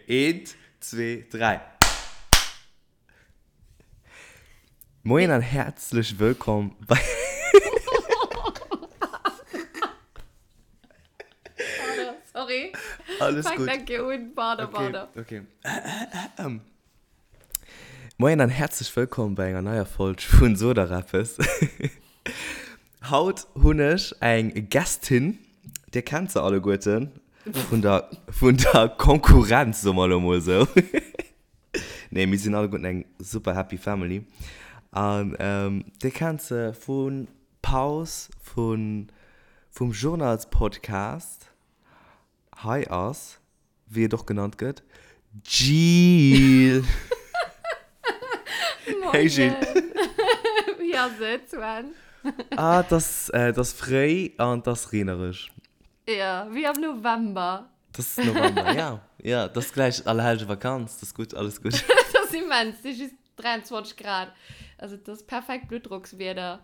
Eent, zwee, dräi. Moien an häerzlech wëllkomm bei. Pardon, sorry. Alles Fang gutt. eng Kéier un. Pardon, Okay, pardon. okay. Moien an häerzlech wëllkomm bei enger neier Folg vun Sot der eppes. Haut hunn ech eng Gästin, dir kennt se alleguerten, vun der, vun der Konkurrenz, soe mer elo mol esou. Nee, mir sinn alleguerten eng super happy family. An dir kennt se vu Paus, vun, vum Journalspodcast. Hei ass, wéi et och genannt gëtt, d'Jil. Hey Jil. Wéi ass et, Sven? Ah, et ass, et ass fréi an et ass reenereg. Jo, wéi am November. Et ass November, ja. Ja, et ass gläich Allerhellgevakanz, et ass gutt, alles gutt. Et ass immens, et si just 23 Grad. Also et ass perfekt Bluttdrockswieder.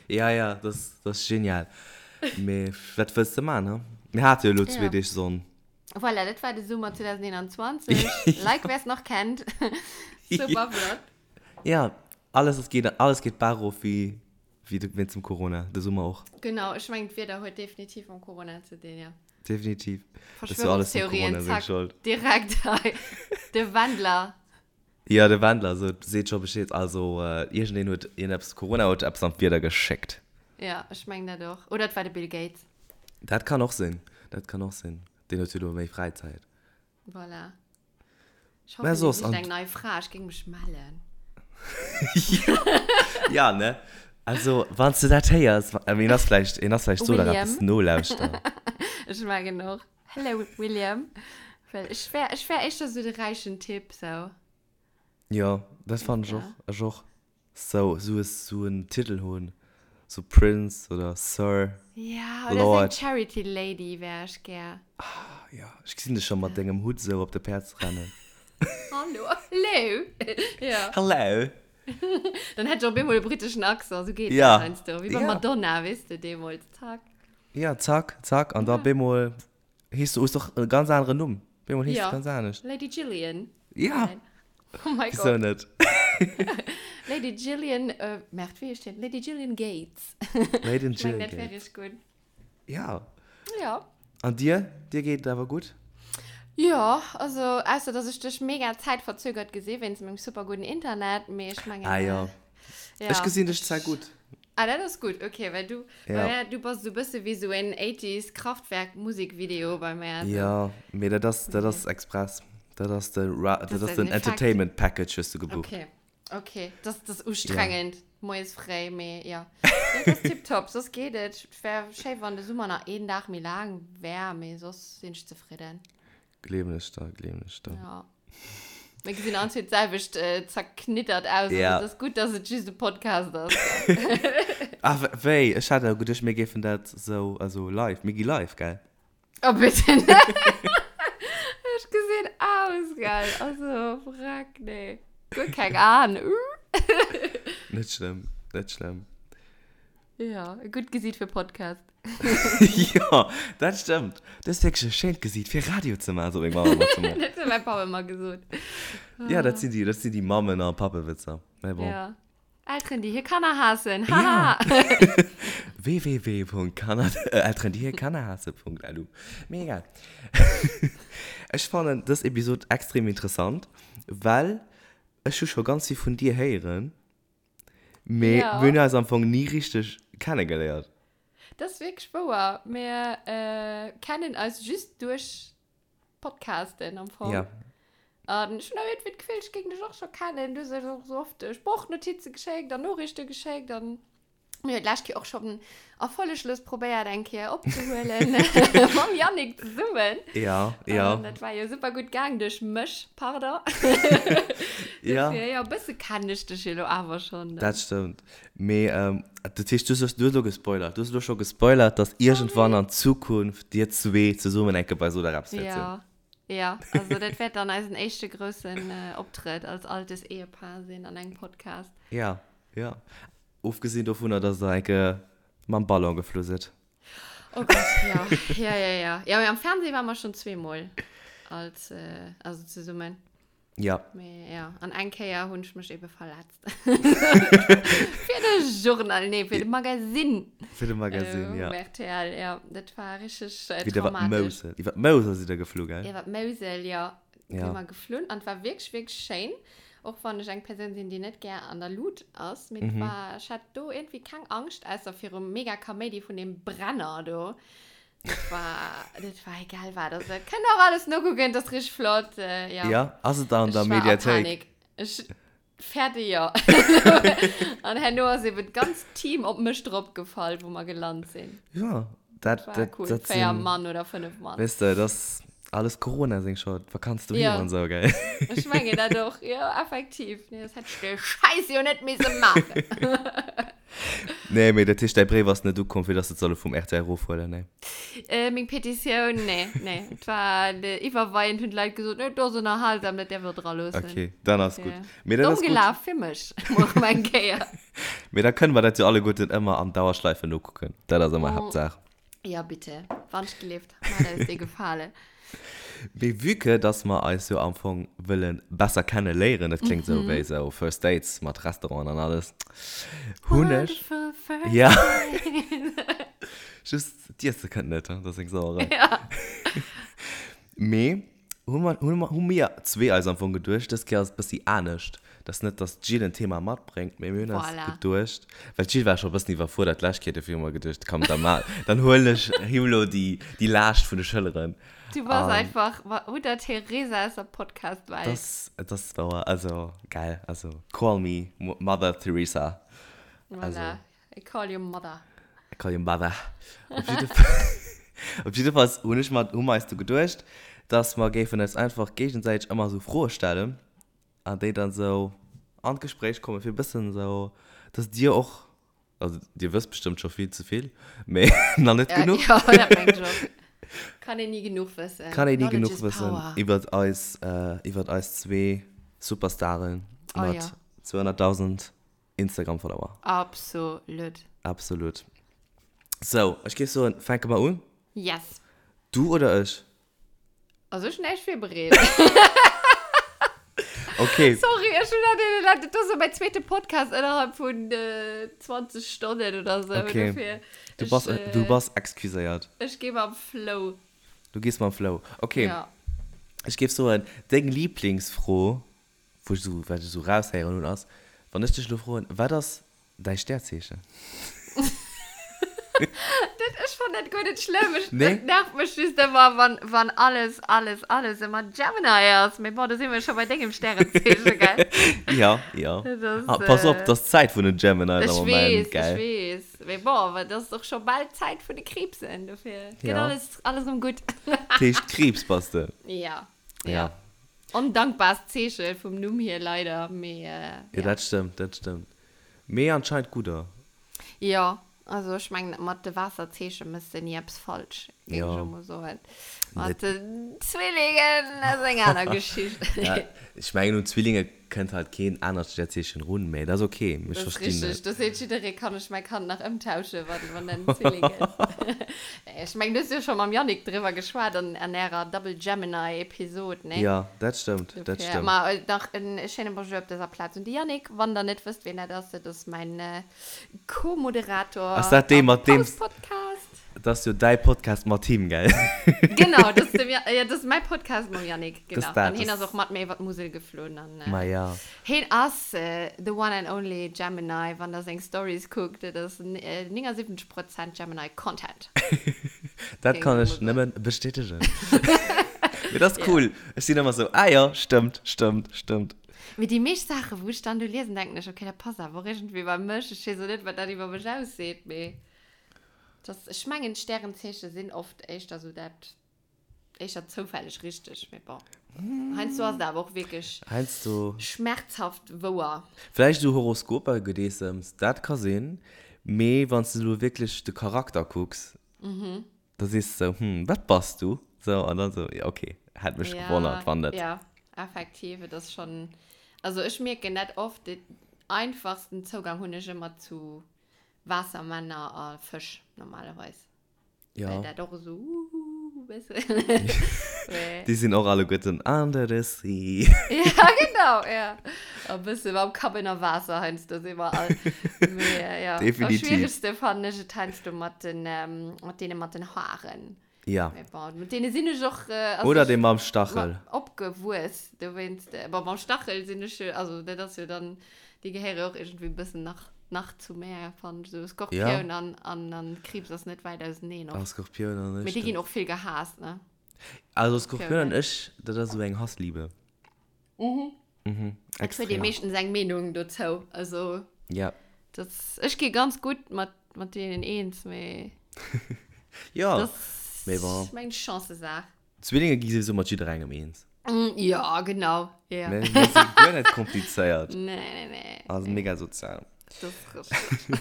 Ja, ja, dat ass, dat ass genial. Mee wat wëlls de man, he? Mir hate jo elo zwee Ja. Deeg Sonn. Voilà, dat war de Summer 2021. Like, wer es nach kennt. Super flott. Ja, alles ass geet, alles geet barof wéi, wéi de, wéinst dem Corona, de Summer och. Genau, ech mengen d'Wieder huet definitiv mam Corona ze dinn, ja. Definitiv. Dat ass jo alles dem Verschwörungstheorien, Corona seng zack, Schold. direkt hei. De Wendler. Jo, de Wendler sot, seet scho Bescheed. Also, iergendeen huet iergendeppes, Corona huet eppes an d'Wieder geschéckt. Ja, ech mengen dat och. Oder et war de Bill Gates. Dat kann och sinn, dat kann och sinn. Deen huet jo elo méi Fräizäit. Voilà. Ech Mä hoffen, dee soss, sicht an. eng nei Fra. Ech géing mech mellen. Ja, ne? Also, wann s de dat héiers, een ass vläicht, een ass vläicht do nach William. eppes nolauschteren. Ech mengen och. Hello William. Well ech wär, ech wär éischter sou de räichen Typ, sou. Jo, dat fannen ech Ja. och, ech och. Sou, sou e, sou en Titel hunn, sou Prince oder Sir, Ja, oder sou eng Lord. Charity Lady wär ech gär. Ah, jo, ech gesinn dech scho mat dengem Hutt sou op de Päerd rennen. Hallo, hello! Ja. Hello! Dann hätt ech op eemol e britteschen Accent, sou geet dat Ja. heiansdo. Wéi beim Ja. Madonna, weess de, deemools, zack. Ja, zack, zack, an da Ja. bemol hees du, hues doch e ganz aneren Numm. Bemol hees du Ja. ganz anescht. Lady Gillian. Ja. Nein. Oh mein Wieso Gott. net? Lady Gillian, äh, Merde, wéi heescht hien? Lady Gillian Gates. Lady Ich mein, Gillian dat wär Gates. richtig gut. Ja. Ja. An dir? Dir geet et awer gutt? Ja, also, ausser dass ech dech mega zäitverzögert gesi wéinst mengem super gudden Internet, mee ech mengen, Ah ja. ja. Ech gesinn dech zwar gutt. Ah, dat ass gutt, okay, well du, Ja. bei mär, du bass esou e bësse wéi esou en 80s Kraftwerk Musikvideo bei mär, esou. Ja, mee dat ass, dat ass express. Dat ass de Ra, dat Dat ass ass den den Effekt. Entertainment Package hues du gebucht. Okay, okay, das, das ass ustrengend, moies fréi, mee ja. Nee, dat ass tiptop, soss geet et. Et wär schéi, wann de Summer nach een Dag méi laang wär, mee soss sinn ech zefridden. Gleewen ech der, gleewen ech der. Ja. Mir gesinn all zwee d'selwecht äh, zerknittert aus. Ja. Also, et ass gutt, dass et just e Podcast ass. Ah, wéi? Ech hat awer geduecht, mir géifen dat sou, also live, mir gi live, gell? Oh, bitte net. Ech gesinn aus, gell? Also, frack, nee. Guer keng Aen. Net schlëmm, net schlëmm. Ja, e gutt Gesiit fir Podcast. Jo, dat stëmmt. Du hues wierklech e schéint Gesiit fir Radio ze maachen, sot meng Mamm ëmmer zu mir. Dat huet mäi Papp ëmmer gesot. Ja, dat sinn déi, dat sinn déi Mammen a Pappewitzer. Mä bon. Ja. Elteren, déi hir Kanner haassen. Haha! Ja. www.kanner, Elteren, déi hir Kanner haasse.lu. Mee egal. Ech fannen dës Episod extrem interessant, well ech hu scho ganz vill vun dir héieren. Mee Ja. mir hunn eis am Fong ni richteg kennegeléiert. Dat ass wierklech wouer. Mir äh, kennen eis just duerch Podcasten am Fong. Ja. An ech hunn awer iergendwéi d'Gefill, ech géing dech och scho kennen. Du hues eis och sou oft Sproochnotize geschéckt an Noriichte geschéckt an mir hunn d'lescht Kéier och schonn erfolleglos probéiert eng Kéier opzehuelen mam Yannick zesummen. Ja, ja. An dat war jo super gutt gaang duerch mech, pardon. Ja. Dofir, jo, e bësse kennen ech dech jo elo awer schonn. Dat stëmmt. Mee dat heescht, du hues elo gespoilert. Du hues elo scho gespoilert, dass iergendwann an Zukunft dir zwee zesummen eng Kéier bei Sot a Reps wäert sinn. Ja, ja. Also dat wäert dann eisen éischte groussen Optrëtt als altes Ehepaar sinn an engem Podcast. Ja, ja. Ofgesinn dovunner, dass der eng Kéier mam Ballon geflu sidd. Oh Gott, ja. Ja, ja, ja. Ja, mee am Fernseh ware mer schonn zweemol. Als, äh, also zesummen. Ja. Mee, ja. An eng Kéier hunn ech mech ebe verletzt. Fir de Journal, nee, fir de Magazine. Fir de Magazine, äh, ja. Um RTL, ja. Dat war richtig äh, Wéi der wat traumatisch. Mousel. Iwwer d'Mousel sidd der geflu, gell? Iwwer d'Mousel, ja. Ja. Si mer geflunn an et war wierklech, wierklech schéin. Och wann ech eng Persoun sinn, déi net gär an der Lut ass. Mee et war, ech hat do iergendwéi keng Angscht, ausser virum mega Kaméidi vun deem Brenner do. Dat war, dat war egal wat. Also, kënnt och alles nokucken, dat ass richtig flott. Äh, ja. Ja, ass et an der Ech war a Mediathéik? Panik. Ech, fertig, ja. An herno ass eben d'ganzt Team op mech dropgefall, wou mer gelant sinn. Ja, dat, War dat, cool. dat Véier sinn, Mann oder fënnef Mann. weess de, dat ass alles Corona seng Schold. Vakanz doheem Ja. an esou, gell? Ech mengen dat och. Ja, effektiv. Nee, das hätt ech de Scheiß jo net misse maachen. Nee, mee dat heescht, däi Bréif ass net ukomm, fir dass se et solle vum rtl erofhuelen, nee? Äh, meng Petitioun, nee, nee. Et war de, iwwerweiend hunn d'Leit gesot, nee, do ass ënnerhalsam, dat däerf der dra loossen. Okay, dann ass gutt. Ja. Mee dat Domm ass gutt. gelaf fir mech, mol erëm eng Kéier. Mee da kënne mer dat jo alleguerten ëmmer an Dauerschleife nokucken. Dat ass ëmmer Haaptsaach. Ja, bitte. Wann ech gelift. Maat eis dee Gefale. Mee vue que dass mer eis jo am Fong wëlle besser kenne léieren, dat kléngt esou wéi esou First Dates mat Restauranten an alles, hunn ech. Wonderful first Ja. dates. Just d'Iesse kënnt net, dat ass eng Sauerei. Ja. Mee hu mer, hu mer, hu mir zwee eis am Fong geduecht, dës Kéier ass et bëssi anescht, dass net, dass d'Jill en Thema matbréngt, mee mir hunn eis Voilà. geduecht, well d'Jill war scho e bëssen iwwerfuerdert d'lescht Kéier, dofir hu mer geduecht, komm, da ma, dann huelen ech him elo déi, déi Laascht vun de Schëlleren. Du bass An einfach Mutter Teresa aus der Podcast-Welt. das, das war, also, geil, also, call me Mother Teresa. Also. Voilà. I call you mother. I call you mother. Op jidde Fall, op jiddefalls hunn ech mer, hu mer eis du geduecht, dass mer géifen eis einfach géigesäiteg ëmmer esou Froe stellen an déi dann esou an d'Gespréich kommen, fir e bëssen esou, dass dir och, also dir wësst bestëmmt scho vill ze vill, mee nach net Ja, genuch. ja, dat mengt ech och. Kann een ni genuch wëssen. Kann een ni Knowledge genuch is wëssen power. iwwert eis, iwwert eis zwee Superstaren Oh mat ja. 200.000 Instagram Follower. Absolut. Absolut. So, ech géif soen, fänke mer un? Yes. Du oder ech? Also ech hunn näischt virbereet. Okay. Sorry, ech hunn dat deene Leit, dat ass so mäin zweete Podcast innerhalb vun 20 Stonnen oder sou. Okay. Dofir, Du ech, bass, du bass excuséiert. Ech gi mam Flow. Du gees mam Flow. Okay. Ja. Ech géif soen, deng Lieblingsfro Wou ech esou, wat ech esou raushéieren hunn, ass, wann ech dech elo froen, wat ass däi Stärzeechen? Dat, ech fannen dat guer net schlëmm. Ech, Nee? Dat nervt mech just ëmmer, wann, wann alles, alles, alles ëmmer Gemini ass. Mee bon, do si mir scho bei dengem Stärenzeechen, gell? Ja, ja. Dat ass, Ah, pass op, äh, dat ass d'Zäit vun den Geminis Ech am Moment, weess, ech gell? weess. Mee bon, awer dat ass och scho bal d'Zäit vun de Kriibsen, dofir gëtt Ja. alles, alles erëm gutt. Dat heescht, Kriibs bass de? Ja. Ja. Ja. Ondankbaarst Zeeche vum Numm hier leider, mee Ja, ja. dat stëmmt, dat stëmmt. Mee anscheinend gudder. Jo, also ech mengen mat de Waasserzeeche mëss de ni eppes falsch, géing ech Jo. elo mol soen. Mat Net. den Zwillingen ass eng aner Geschicht. Ja, ech mengen un Zwillinge kënnt halt keen anert Sternzeechen run, mee dat ass ok, ech Dat ass verstinn richteg, dat. do seet jidderee, kann ech mäi Kand nach ëmtauschen, wann, wann en Zwilling ass. Nee, ech mengen, du hues jo scho mam Yannick driwwer geschwat an, an ärer Double Gemini Episod, nee? Jo, dat stëmmt, dat Dofir, stëmmt. ma nach en schéine Bonjour op dëser Plaz un de Yannick. Wann der net wësst, wien dat ass, dat ass mäin Co-Moderator Ass dat dee am mat deem. Paus-Podcast. Dat ass jo däi Podcast mat him, gell? Genau, dat ass dem, ja, dat ass mäi Podcast mam Yannick, genau. Das dat, An hien das ass och mat mir iwwer d'Musel geflunn. An, äh, Ma ja. Hien ass äh, the one and only Gemini, wann der seng Stories kuckt, dat ass äh, 79 Prozent Gemini Content. Dat Géing kann ech ech mol soen. nëmmen bestätegen. Mee dat ass Ja. cool. Ech sinn ëmmer sou, ah jo, stëmmt, stëmmt, stëmmt. Mee déi meescht Saachen, wou ech dann do liesen, denken ech, okay, dat passt awer och iergendwéi bei mech. Ech weess och net, wat dat iwwer mech ausseet, mee. Das, ech mengen d'Stärenzeeche sinn oft éischter sou dat, éischter zoufälleg richteg, mee bon. Heiansdo ass et awer och wierklech Heiansdo. schmerzhaft wouer. Vläicht esou Horoskoper, Gedeessems, dat ka sinn, mee wann s de elo wierklech de Charakter kucks, da sees de sou, hm, wat bass du? Sou, an dann sou, jo okay, hätt mech gewonnert, wann net. Ja, effektiv, et ass schonn, also ech mierken dat oft, den einfachsten Zougang hunn ech ëmmer zu Waassermänner a Fësch normalerweis. Ja. Well dat och esou uhuhu. bëssen. Déi sinn och alleguerten under the sea. Ja, genau, ja. E bësse mam Kapp ënner Waasser heiansdo si mer all. Mee ja, am Definitiv. schwieregste fannen ech et heiansdo mat den, mat deene mat den Haaren. Ja. Mee bon, mat deene sinn ech och, also Oder ech dee mam Stachel. opgewuess, dowéinst, bon, mam Stachel sinn ech jo, also dat ass jo dann, déi gehéiere jo och iergendwéi e bëssen nach, nach zu mär, fannen ech, esou Skorpioun Ja. an, an, an Kriibs ass net wäit auseneen Ah, oft. Skorpioun an ech, Mee déi ginn dat. och vill gehaasst, ne? Also Skorpioun an Skorpioun. ech, dat ass esou eng Hassliebe. Mhm. Mhm, Et huet ee extrem. meeschtens eng Meenung dozou, also. Ja. Das, ech gi ganz gutt mat, mat deenen eens, mee. Ja, Das mee bon. ist meng Chancesaach. Zwillinge gi souwisou mat jidderengem eens. Mm, ja, genau. Ja. Mir mir si guer net komplizéiert. Nee, nee, nee. Also mega sozial. Das ist richtig.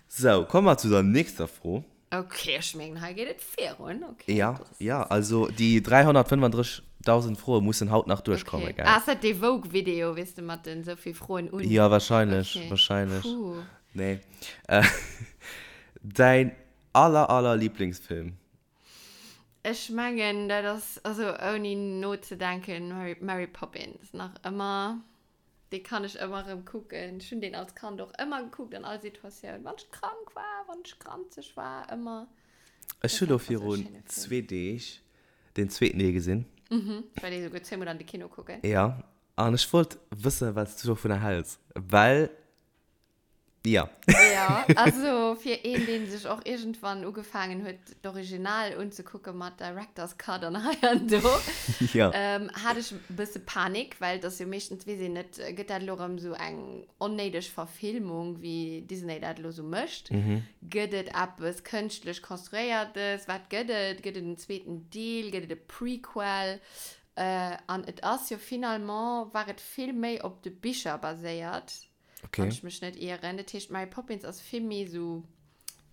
So, komme mer zu der nächster Fro. Okay, ech mengen, hei geet et virun. Okay, Ja, das ist- ja, also déi 335.000 Froe mussen haut nach duerchkommen, Okay. gell? Ah, ist dat dee Vogue-Video, weess de, mat den sou vill Froen un? Ja, wahrscheinlech, Okay. wahrscheinlech. Puh. Nee. Äh, däin aller, aller Lieblingsfilm? Ech mengen, dat ass, also ouni nozedenken, Mary, Mary Poppins. Nach ëmmer. Dee kann ech ëmmer erëm kucken. Ech hunn deen als Kand och ëmmer gekuckt, an all Situatioun. Wann ech krank war, wann ech granzeg war, ëmmer. Ech hu lo virun zwee Deeg den zweeten Deel gesinn. Mhm, well ee souguer zweemol an de Kino kucken. Ja, an ech wollt wëssen, wat s du dovunner häls, well Ja. Ja, also fir een, deen sech och iergendwann ugefaangen huet, d'Original unzekucke mat Director's Cut an hei an do, Ja. ähm, hat ech e bësse Panik, well et ass jo meeschtens, weess een net, gëtt dat elo erëm esou eng onnéideg Verfilmung, wéi Disney dat elo esou mécht? Gëtt et eppes kënschtlech Konstruéiertes? Wat gëtt et? Gëtt et en zweeten Deel? Gëtt et e Prequel? Äh, an et ass jo finalement, war et vill méi op de Bicher baséiert. Okay. Wann ech mech net ieren. Dat heescht, Mary Poppins ass vill méi sou,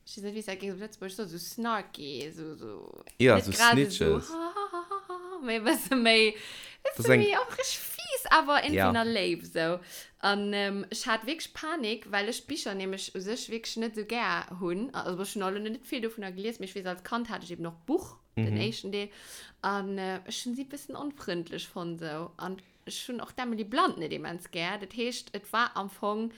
ech weess net, wéi s dat géings op Lëtzebuergesch soen, sou snarky, sou, sou, Ja, net sou grad esou snitches. hahahaha, mee e bësse méi, Das bësse ist eng- méi och richteg fies, awer irgendwie Ja. nach léif, sou. An ähm, ech hat wierklech Panik, well ech d'Bicher nämlech u sech wierklech net sou gär hunn. Also ech hunn och elo net vill dovunner gelies, mee ech weess, als Kand hat ech eben och d'Buch, den éischten Deel, an äh, ech hunn si e bëssen onfrëndlech fonnt, sou. An Ech hunn och d'Emily Blunt net immens gär. Dat heescht, et war am Fong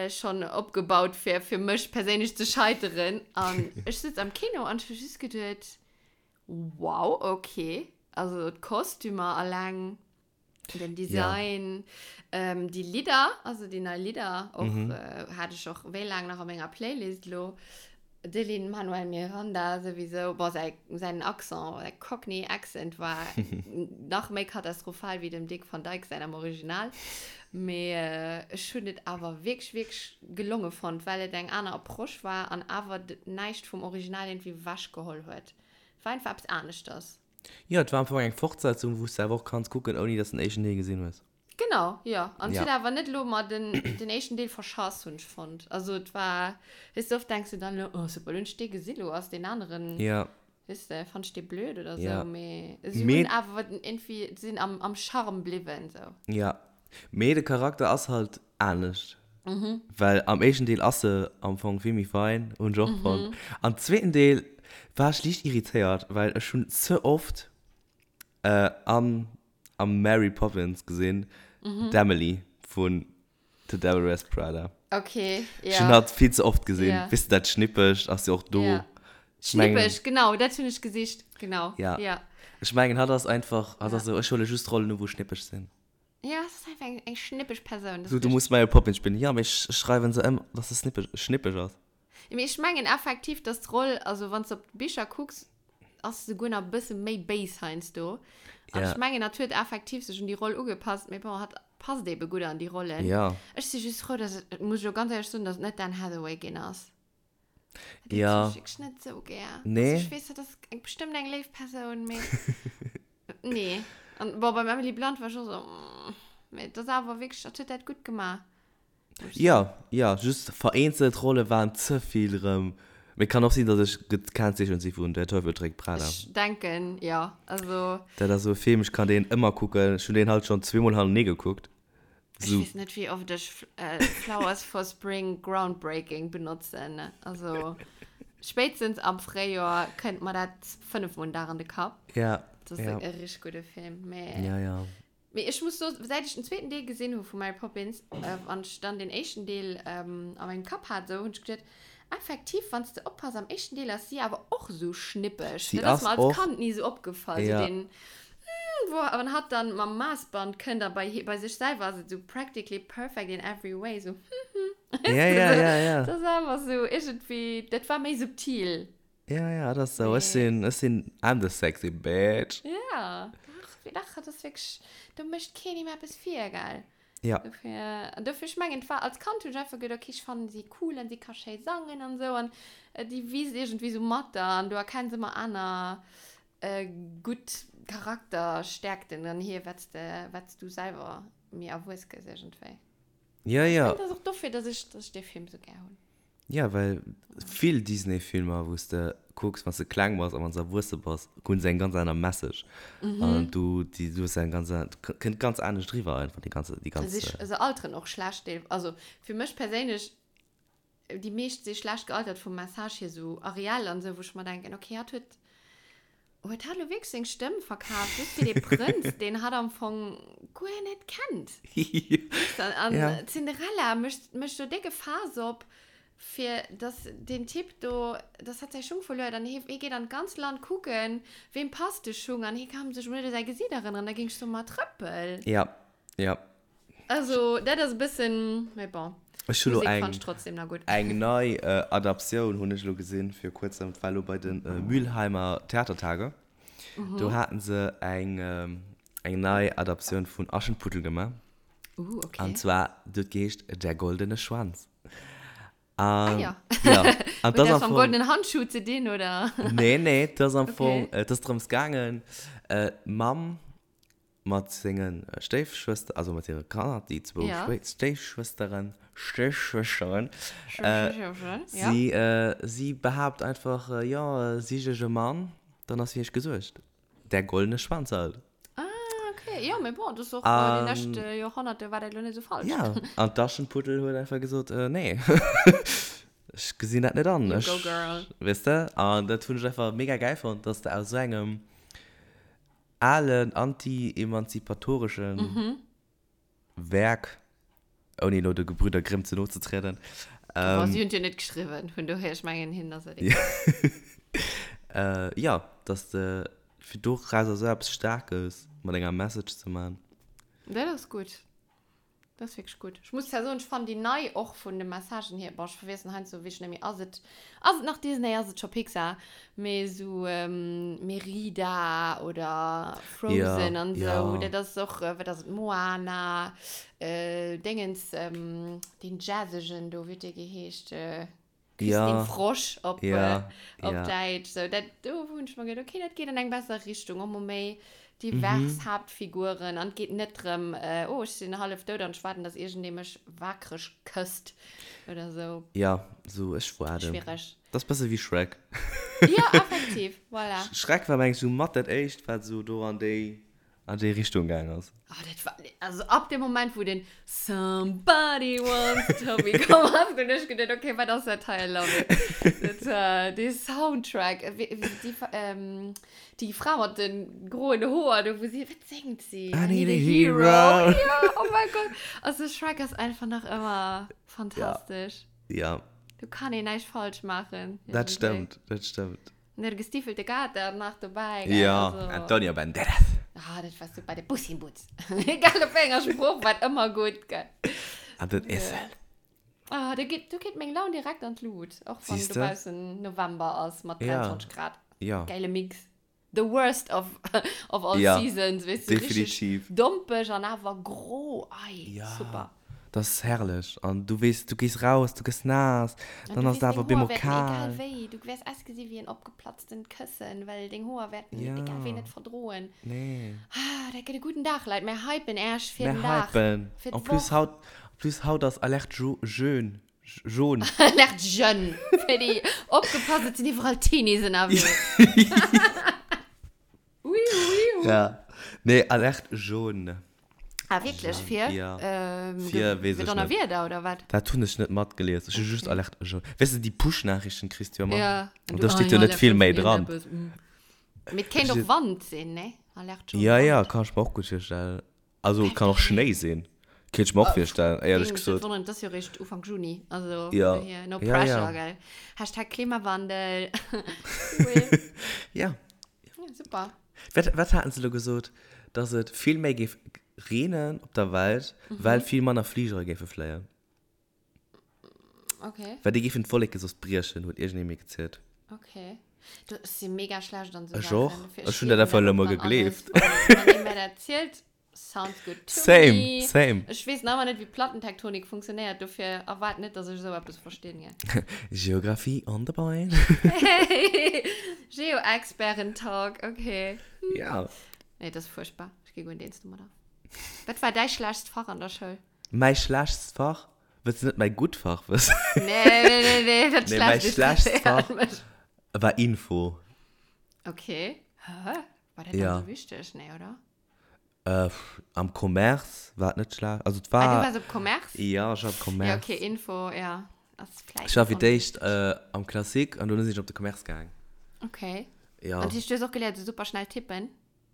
schonn opgebaut, fir fir mech perséinlech ze scheiteren. An ech sëtz am Kino an ech hu just geduet, Wow, okay. Also d'Kostümer alleng, den Design, déi Lidder, also déi nei Lidder och, hat ech och wéi laang nach a menger Playlist elo. De Lin-Manuel Miranda souwisou, bon, säi, säin Accent, säi Cockney Accent war nach méi katastrophal wéi dem Dick Van Dyke säin am Original. Mee ech hunn et awer wierklech, wierklech gelonge fonnt, well et eng aner Approche war an awer näischt vum Original iergendwéi ewechgeholl huet. Et war einfach eppes aneschters. Jo, et war am Fong eng Fortsetzung, wou s de awer och kanns kucken, ouni dass de den éischten Deel gesinn hues. Genau, jo. An et Ja. huet awer net elo mer den, den éischten Deel verschass, hunn ech fonnt. Also et war, weess de, oft denks du dann elo, oh super, elo hunn ech dee gesi, lo ass deen aneren, Ja. weess de, fannt ech dee blöd oder sou. Ja. Mee si Mee- hunn awer irgendwie, sinn am, am Charme bliwwen, sou. Ja. Mee de Charakter ass halt anescht. Well am éischten Deel ass se am Fong vill méi fein, hunn ech och fonnt. Am zweeten Deel war ech liicht irritéiert, well ech hunn ze oft an am Mary Poppins gesinn, d'Emily vun The Devil Wears Prada. Okay, ja. Ech hunn hatt vill ze oft gesinn. Ja. Weess de, dat Schnippegt ass jo och do. Ja. Ech mengen- Schnippeg, genau, dat hunn ech gesicht, genau. Ja. Ja, Ech mengen, hatt ass einfach, hatt Ja. ass esou, ech huele just Rollen u wou schnippeg sinn. Ja, es ass einfach eng, eng schnippeg Persoun. So, du muss Mary Poppins spillen. Ja, mee ech schreiwen se ëm, dass se snippeg, schnippeg ass. Mee ech mengen effektiv, dass d'Roll, also wann s de op d'Bicher kucks, ass se souguer nach e bësse méi béis heiansdo. An Ja. ech mengen, hatt huet effektiv sech un déi Roll ugepasst, mee bon, hatt passt ebe gutt an déi Rollen. Ja. Ech si just frou, dass et, muss ech elo ganz éierlech soen, dass et net d'Anne Hathaway ginn ass. Dat Ja. hunn ech wierklech net esou gär. Nee. Also ech weess, dat ass eng, bestëmmt eng léif Persoun, mee nee. An bon, beim Emily Blunt war ech och esou, mm, mee et ass awer wierklech, hatt huet dat gutt gemaach. Jo, jo, just vereenzelt Rolle waren ze vill rëm. Mee kann och sinn, datt ech gekennzeechent si vun Der Teufel trägt Prada. Ech denken, jo. Also. Dat ass esou e Film, ech kann deen ëmmer kucken. Ech hunn deen halt schonn zweemol hannertenee gekuckt. Ech weess net, wéi oft ech Flowers for Spring Groundbreaking benotzen. Also, ech. Spéitstens am Fréijoer kënnt mer dat 5 Mol den Dag an de Kapp. Ja. Dat ass ja. e richtig gudde Film. Mee, Ja, ja. mee ech muss soen, säit ech den zweeten Deel gesinn hu vu Mary Poppins, äh, an ech dann den éischten Deel ähm, a mengem Kapp hat, esou hunn ech geduet, effektiv, wann s de oppass, am éischten Deel ass si awer och esou schnippeg. Si Dat ass ass mer als och. Kand ni esou opgefall, esou Ja. den, mm, wou wann hatt dann mam Maassband kënnt a bei, bei sech selwer ass et esou practically perfect in every way, esou, hm, hm. Ja, ja, ja, ja. Dat ass awer esou iergendwéi, dat war méi subtil. Ja, ja, dat ass esou. Ech Mee. sinn, ech sinn, I'm the sexy bitch. Ja, dach, dach, dat ass wierklech, do mécht keen him eppes vir, gell? Ja. Dofir, an dofir, ech mengen, et war, als Kand hunn ech einfach geduet, okay, ech fannen si cool an si ka schéi sangen an esou an déi wiisst iergendwéi esou mat der an du erkenns ëmmer aner gutt Charakterstäerkten an hir, wat s de, wat s du selwer méi erwuess gëss iergendwéi. Ja, ja. Ech mengen, et ass och dofir, dass ech, dass ech dee Film esou gär hunn. Ja, well vill Disney-Filmer, wou s de kucks, wann s de kleng bass a wann s de erwuesse bass, hunn se eng ganz aner Message. An du, déi, du hues eng ganz aner, kënnt ganz anescht eriwwer einfach, déi ganze, déi ganz. Se, se alteren och schlecht, deel, also fir mech perséinlech, déi meescht si schlecht gealtert vum Message hier, sou Ariel an sou, wou ech mer denken, okay, hatt huet, Huet hatt elo wierklech seng Stëmm verkaf just fir dee Prënz, deen hatt am Fong guer net kennt? Weess de? An Ja. d'Cinderella mécht, mécht do décke Faass op, fir dass deen Typ do, dass hatt säi Schung verluer huet an hie, hie geet an d'ganz Land kucken, weem passt de Schung an hie ka sech emol net u säi Gesiit erënneren. Da géing ech soen, ma trëppel! Ja, ja. Also, dat ass e bëssen, mee bon. Ech hu lo D'Musek eng, fannt ech trotzdem nach gutt. eng nei Adaptioun hunn ech elo gesinn vir kuerzem, dat war elo bei de Mülheimer Theatertage. Do haten se eng, eng nei Adaptioun vun Aschenputtel gemaach. Uh, okay. An zwar, déi huet geheescht Der goldene Schwanz. Ah An, ja. ja. An Huet dat ass dat am mam Fong. goldenen Handschuh ze dinn, oder? Nee, nee, dat ass am Fong, Okay. et ass drëms gaangen, d'Mamm Mat senge Stéifschwëster, also mat hire Kanner, déi zwou Ja. Stéifschwësteren, Stéifschwësteren, Schwësteren, ja. si, si behaapt einfach, jo, sich ech e Mann, dann ass fir iech gesuergt. Der goldene Schwanz halt. Ah, okay. Jo, mee bon, dat ass och, déi lescht Joerhonnerte war dat elo net esou falsch. Ja, an d'Aschenputtel huet einfach gesot, nee, ech gesinn dat net an. You go, girl. Weess de? An dat hunn ech einfach mega gäil fonnt, dass de aus esou engem alen anti-emanzipatoreschen Werk, ouni elo de Gebrüder Grimm ze no ze trieden. Ähm, si hunn et jo net geschriwwen, vun dohier, ech mengen, hinnen ass et egal. Jo, dass de fir dorauser esou eppes Staarkes mat enger Message ze man. Dat ass gutt. Dat ass wierklech gutt. Ech muss zwar soen, ech fannen déi nei och vun de Messagen hier, bon, ech verwiessen heiansdo wierklech net méi, ass et, ass et nach Disney, ass et scho Pixar, mee esou Merida oder Frozen Ja, an esou, ja. dat ass och, wat ass et, Moana, Déngens, deen jazzegen do, wéi huet dee geheescht? Küss Ja. den Frosch op, Ja, äh, op ja. Däitsch. So, dat, do hunn ech mer gedacht, okay, dat geet an eng besser Richtung. Och mol méi divers Mhm. Haaptfiguren. An et geet net drëm, äh, oh, ech sinn hallef dout an ech waarden, dass iergendee mech waakreg kësst oder sou. Ja, sou, ech waarden. Schwiereg. Dat ass bësse wéi Shrek. Ja, effektiv, voilà. Shrek war, meng ech, sou mat dat éischt, wat sou do an déi an déi Richtung gaang ass. Oh, dat war, also ab dem Moment, wou den Somebody once told me komm ass, hunn ech geduet, okay, wat ass dat hei, I love it. Dat, äh, dee Soundtrack, äh, wéi, wéi, déi, ähm, déi Fra mat de groen Hoer do, wou si, wat séngt si? I need a hero. Ja, oh mein Gott. Also Shrek ass einfach nach ëmmer fantastesch. Ja. Do kann een näischt falsch maachen. Dat stëmmt, dat stëmmt. Und der gestiefelte Kater nach dobäi. Gell? Ja, Also, Antonio Banderas. Ah, dat war super, de Puss in Boots. Egal op wéi enger Sprooch, war ëmmer gutt, gell? An den Esel. Ah, do geet, do geet meng Laun direkt an d'Lut. Och wann Siehste? dobaussen November ass mat Ja. 23 Grad. Ja. Geile Mix. The worst of, of all Ja, seasons, weess du, richtig definitiv. dompeg an awer gro. Ei, Ja. super. Dat ass herrlech. An du weess, du gees raus, du gëss naass, An dann du ass weess, et awer deng op eemol Hoer wäerten egal kal. wéi, du wäers ausgesi wéi en opgeplatztent Këssen, well deng Hoer wäerten Ja. egal wéi net verdroen. Nee. Ah, dat gëtt e gudden Dag, Leit. Mär hypen Äech fir Mär den Dag. hypen. Fir En plus d'Woch. haut, en plus haut ass Alerte jo, jeune. Jaune. Alerte jeune. Fir déi opgepasst, et sinn iwwerall Teenies ënnerwee. Ui, ui, ui. Ja. Nee, Alerte jaune. Ah, wierklech? Fir? Ja. Ähm, Fir, weess fir ech net. Donnerwieder oder wat? Dat hunn ech net matgelies. Ech hu just Alerte jaune. Weess de, déi Push-Nachrichten kriss du jo ëmmer. Ja. An do steet jo net vill méi dran. Mee et kéint och Wand sinn, ne? Alerte jaune. Ja, ja, kann ech mer och gutt virstellen. Also, et kann och Schnéi sinn. Kéint ech mer och virstellen, éierlech gesot. Wonnert, et ass jo réischt Ufank Juni. Also, Ja. dohier, no Ja, pressure, ja. gell? Hashtag Klimawandel. Cool. Ja. Ja, super. Wat, wat haten se elo gesot? Dass et vill méi géif reenen op der Welt, well vill manner Fligere géife fléien. Okay. Well déi géifen d'Wolleke soss briechen, huet iergendee mir gezielt. Okay. Du, ech si mega schlecht an esou Ech och. Saachen. Dofir, Ech hunn dat einfach elo mol gleewen dann alles, gegleeft. Wann wann ee mir dat zielt, sounds good to Same, me. same. Ech weess nach ëmmer net, wéi Plattentektonik funktionéiert, dofir erwaart net, dass ech esou eppes verstinn, gell. Geographie on the brain. Geo-Experten-Talk, okay. Ja. Nee, dat ass fuerchtbar. Ech gi guer net eens domadder. Wat war däi schlechtst Fach an der Schoul? Mäi schlechtst Fach? Wëlls de net mäi gutt Fach wëssen? Nee, nee, nee, nee, dat Nee, mäi schlechtst schlechtst interesséiert Fach mech. war Info. Okay. Hä? War dat dann Ja. esou wichteg? Nee, oder? Äh, am Commerce war et net schlecht. Also et Ah, du war. waars op Commerce? Ja, ech war op Commerce. Ja, okay, Info, ja. Ass vläicht Ech war fir d'éischt onwichtig. äh, am Classique an dono sinn ech op de Commerce gaang. Okay. Ja. An du hues och geléiert, esou super schnell tippen?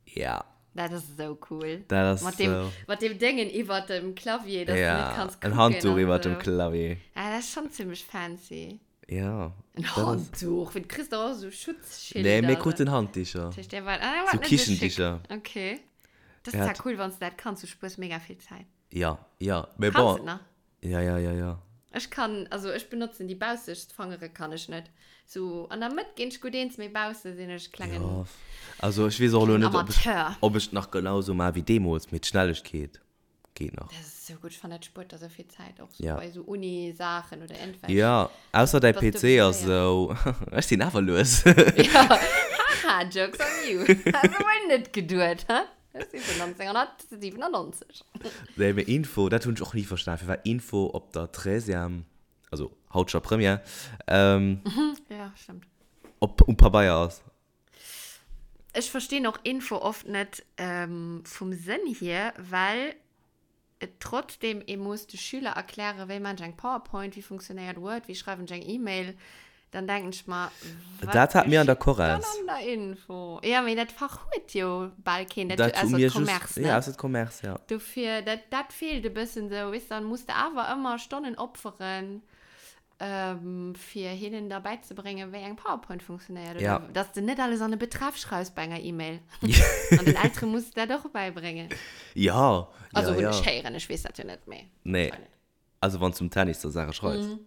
Ja. Dat ass esou cool. Dat ass Mat dem, esou. mat dem Déngen iwwert dem Clavier, dass du Ja, net kanns en kucken Handtuch an iwwert dem esou. Clavier. Ah, dat ass schonn zimmlech fancy. Ja. En dat ass- Handtuch? Wéi, du kriss dach och esou Schutzschilder. Nee, mir kruten Handdicher. Dat heescht, der war, ah, der war So net esou schick. Kichendicher. Okay. Dat ass Ja. zwar cool, wann s du dat kanns, du spuers mega vill Zäit. Ja, ja. Mee Kanns bon. du et nach? Ja, ja, ja, ja. Ech kann, also ech benotzen déi baussegst Fangere kann ech net. Sou an der Mëtt ginn ech gutt eens, mee bausse sinn ech klengen, Ja. Also ech weess och elo klengen net, ob ech, Amateur. ob ech et nach genau sou maache wéi deemools, mee d'Schnellegkeet geet nach. Dat ass sou gutt, ech fannen dat spuert der sou vill Zäit, och sou Ja. bei sou Uni-Saachen oder iergendwelch. Ja, ausser däi Bass du PC ass séier. sou, ech sinn awer lues. Ja, haha, jokes on you. Has du wuel net geduet, hä? Ech si vun 1997. Nee, mee Info, dat hunn ech och ni verstan, firwat Info op der Treizième, also haut scho Première, ähm, Ja, stimmt. op, um Pabeier ass. Ech verstinn och Info oft net ähm, vum Sënn hier, well et trotzdem ee muss de Schüler erklären, wéi maan ech eng PowerPoint, wéi funktionéiert Word, wéi schreiwen ech eng E-Mail, dann denken ech mer, wat Dat hat mir an der geschitt dann Chorres. an der Info? Ja, mee dat Fach huet jo bal keen, dat, Dat hu ausser mir just, Commerce, ja, ne? ausser Commerce, ja. Dofir, dat, dat feelt e bëssen esou, weess, dann muss de awer ëmmer Stonnen opferen, ähm, fir hinnen da bäizebréngen, wéi eng PowerPoint funktionéiert. Oder Ja. dass de net alles an e Betreff schreifs bei enger E-Mail. An den Eltere muss de dat och bäibréngen. Ja, Also ja, hunn ja. ech héieren, ech weess dat jo net méi. Nee. Also wann s du um Tennis da Saache schreifs. Mhm.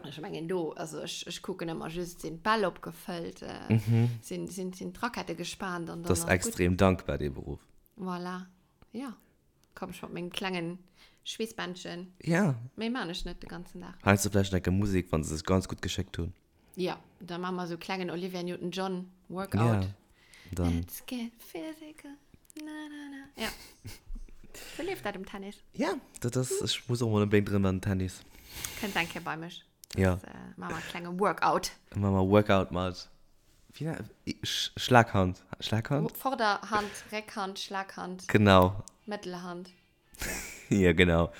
Ech mengen do, also ech, ech kucken ëmmer just, sinn d'Bäll opgefëllt, äh, sinn, sinn, sinn d'Rackette gespaant an dann Mhm. Das ass ist gutt. extrem dankbar, dee Beruff. Voilà. Ja. Komm ech mat mengem klengen Schweessbändchen. Ja. Méi maan ech net de ganzen Dag. Heiansdo vläicht nach enke Musek, wann se sech ganz gutt geschéckt hunn. Ja, da maa mer sou klengen Olivia Newton-John Workout. Ja, dann. Let's get physical, na na na. Ja. Sou leeft dat um Tennis. Ja, dat ass, ech muss och mol onbedéngt erëm an den Tennis. Kënns eng Kéier bei mech. Ja. Das, äh, maa mer e klenge Workout. Maa mer Workout mat, wéi nennt, Schlaghand, Schlaghand? Vorderhand, Réckhand, Schlaghand. Genau. Mëttelhand. Ja, genau.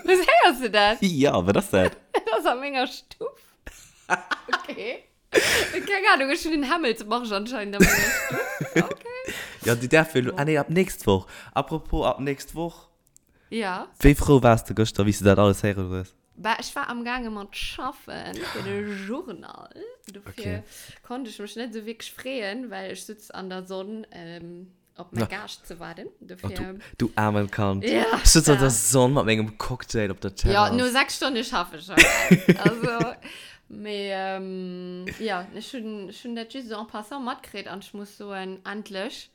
Was héiers du dat? Ja, wat ass dat? Dat ass a menger Stuff. Okay. Keng Ahnung, ech hunn en Hämmelsmarsch anscheinend a menger Stuff. Okay. Ja, déi däerf jo elo, ah nee, ab nächst Woch. Apropos ab nächst Woch. Ja. Wéi frou waars de gëschter, wéi s de dat alles héieren hues? Bah, ech war amgaange mat schaffen fir de Journal. Dofir konnt ech mech net esou wierklech freeën, well ech sutz an der Sonn op mäi Gaascht ze waarden. Dofir. Oh, du, du aarmen Kand. Ja. Ech sutz an der Sonn mat mengem Cocktail op der Terrass. Ja, no 6 Stonne schaffe ech schon. Also, mee ja, ech hunn, ech hunn dat just esou en passant matkritt an ech muss soen, endlech.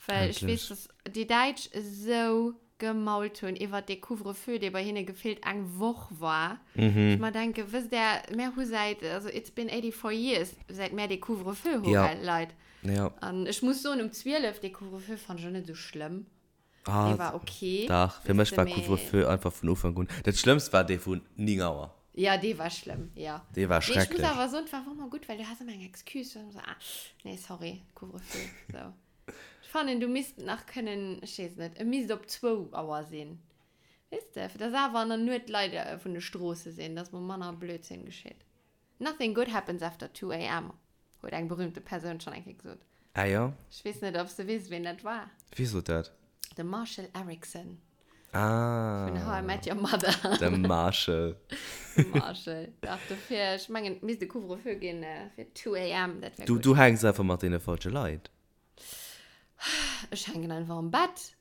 Well ech weess, dass déi Däitsch esou gemault hunn iwwert dee Couvre-feu, dee bei hinne gefillt eng Woch war. Mhm. Ech mer denke, wësst Der, mär hu säit, also it's been 84 years, säit mär dee Couvre-feu hu, Ja. gell, Leit. Ja. An ech muss soen, um 12 dee Couvre-feu fand ech och net esou schlëmm. Ah, Dee war okay. Dach, fir Weess mech de, war mee. Couvre-feu einfach vun Ufank un. Dat Schlëmmst war dee vun 9 Auer. Ja, dee war schlëmm, ja. Dee war Mee ech muss schrecklech. awer soen, et war och ëmmer gutt, well du has ëmmer eng Excuse. Du has ëmmer esou, ah, nee, sorry, Couvre-feu, sou. fannen, du misst nach kënnen, ech weess net, e misst op zwou Auer sinn. Weess de, fir dass awer an der Nuet d'Leit vun de Stroosse sinn, dass mol manner Blödsinn geschitt. Nothing good happens after 2 am, huet eng berühmte Persoun schonn eng Kéier gesot. Ah jo? Ech weess net, ob s de weess, ween dat war. Wie sot dat? De Marshall Eriksen. Ah. Vun How I Met Your Mother. De Marshall. De Marshall. Dach, dofir, ech mengen, et misst e Couvre-feu ginn fir 2 am, dat wär Du, gutt. du hänks einfach mat deene falsche Leit. Ech hänken einfach am Bett.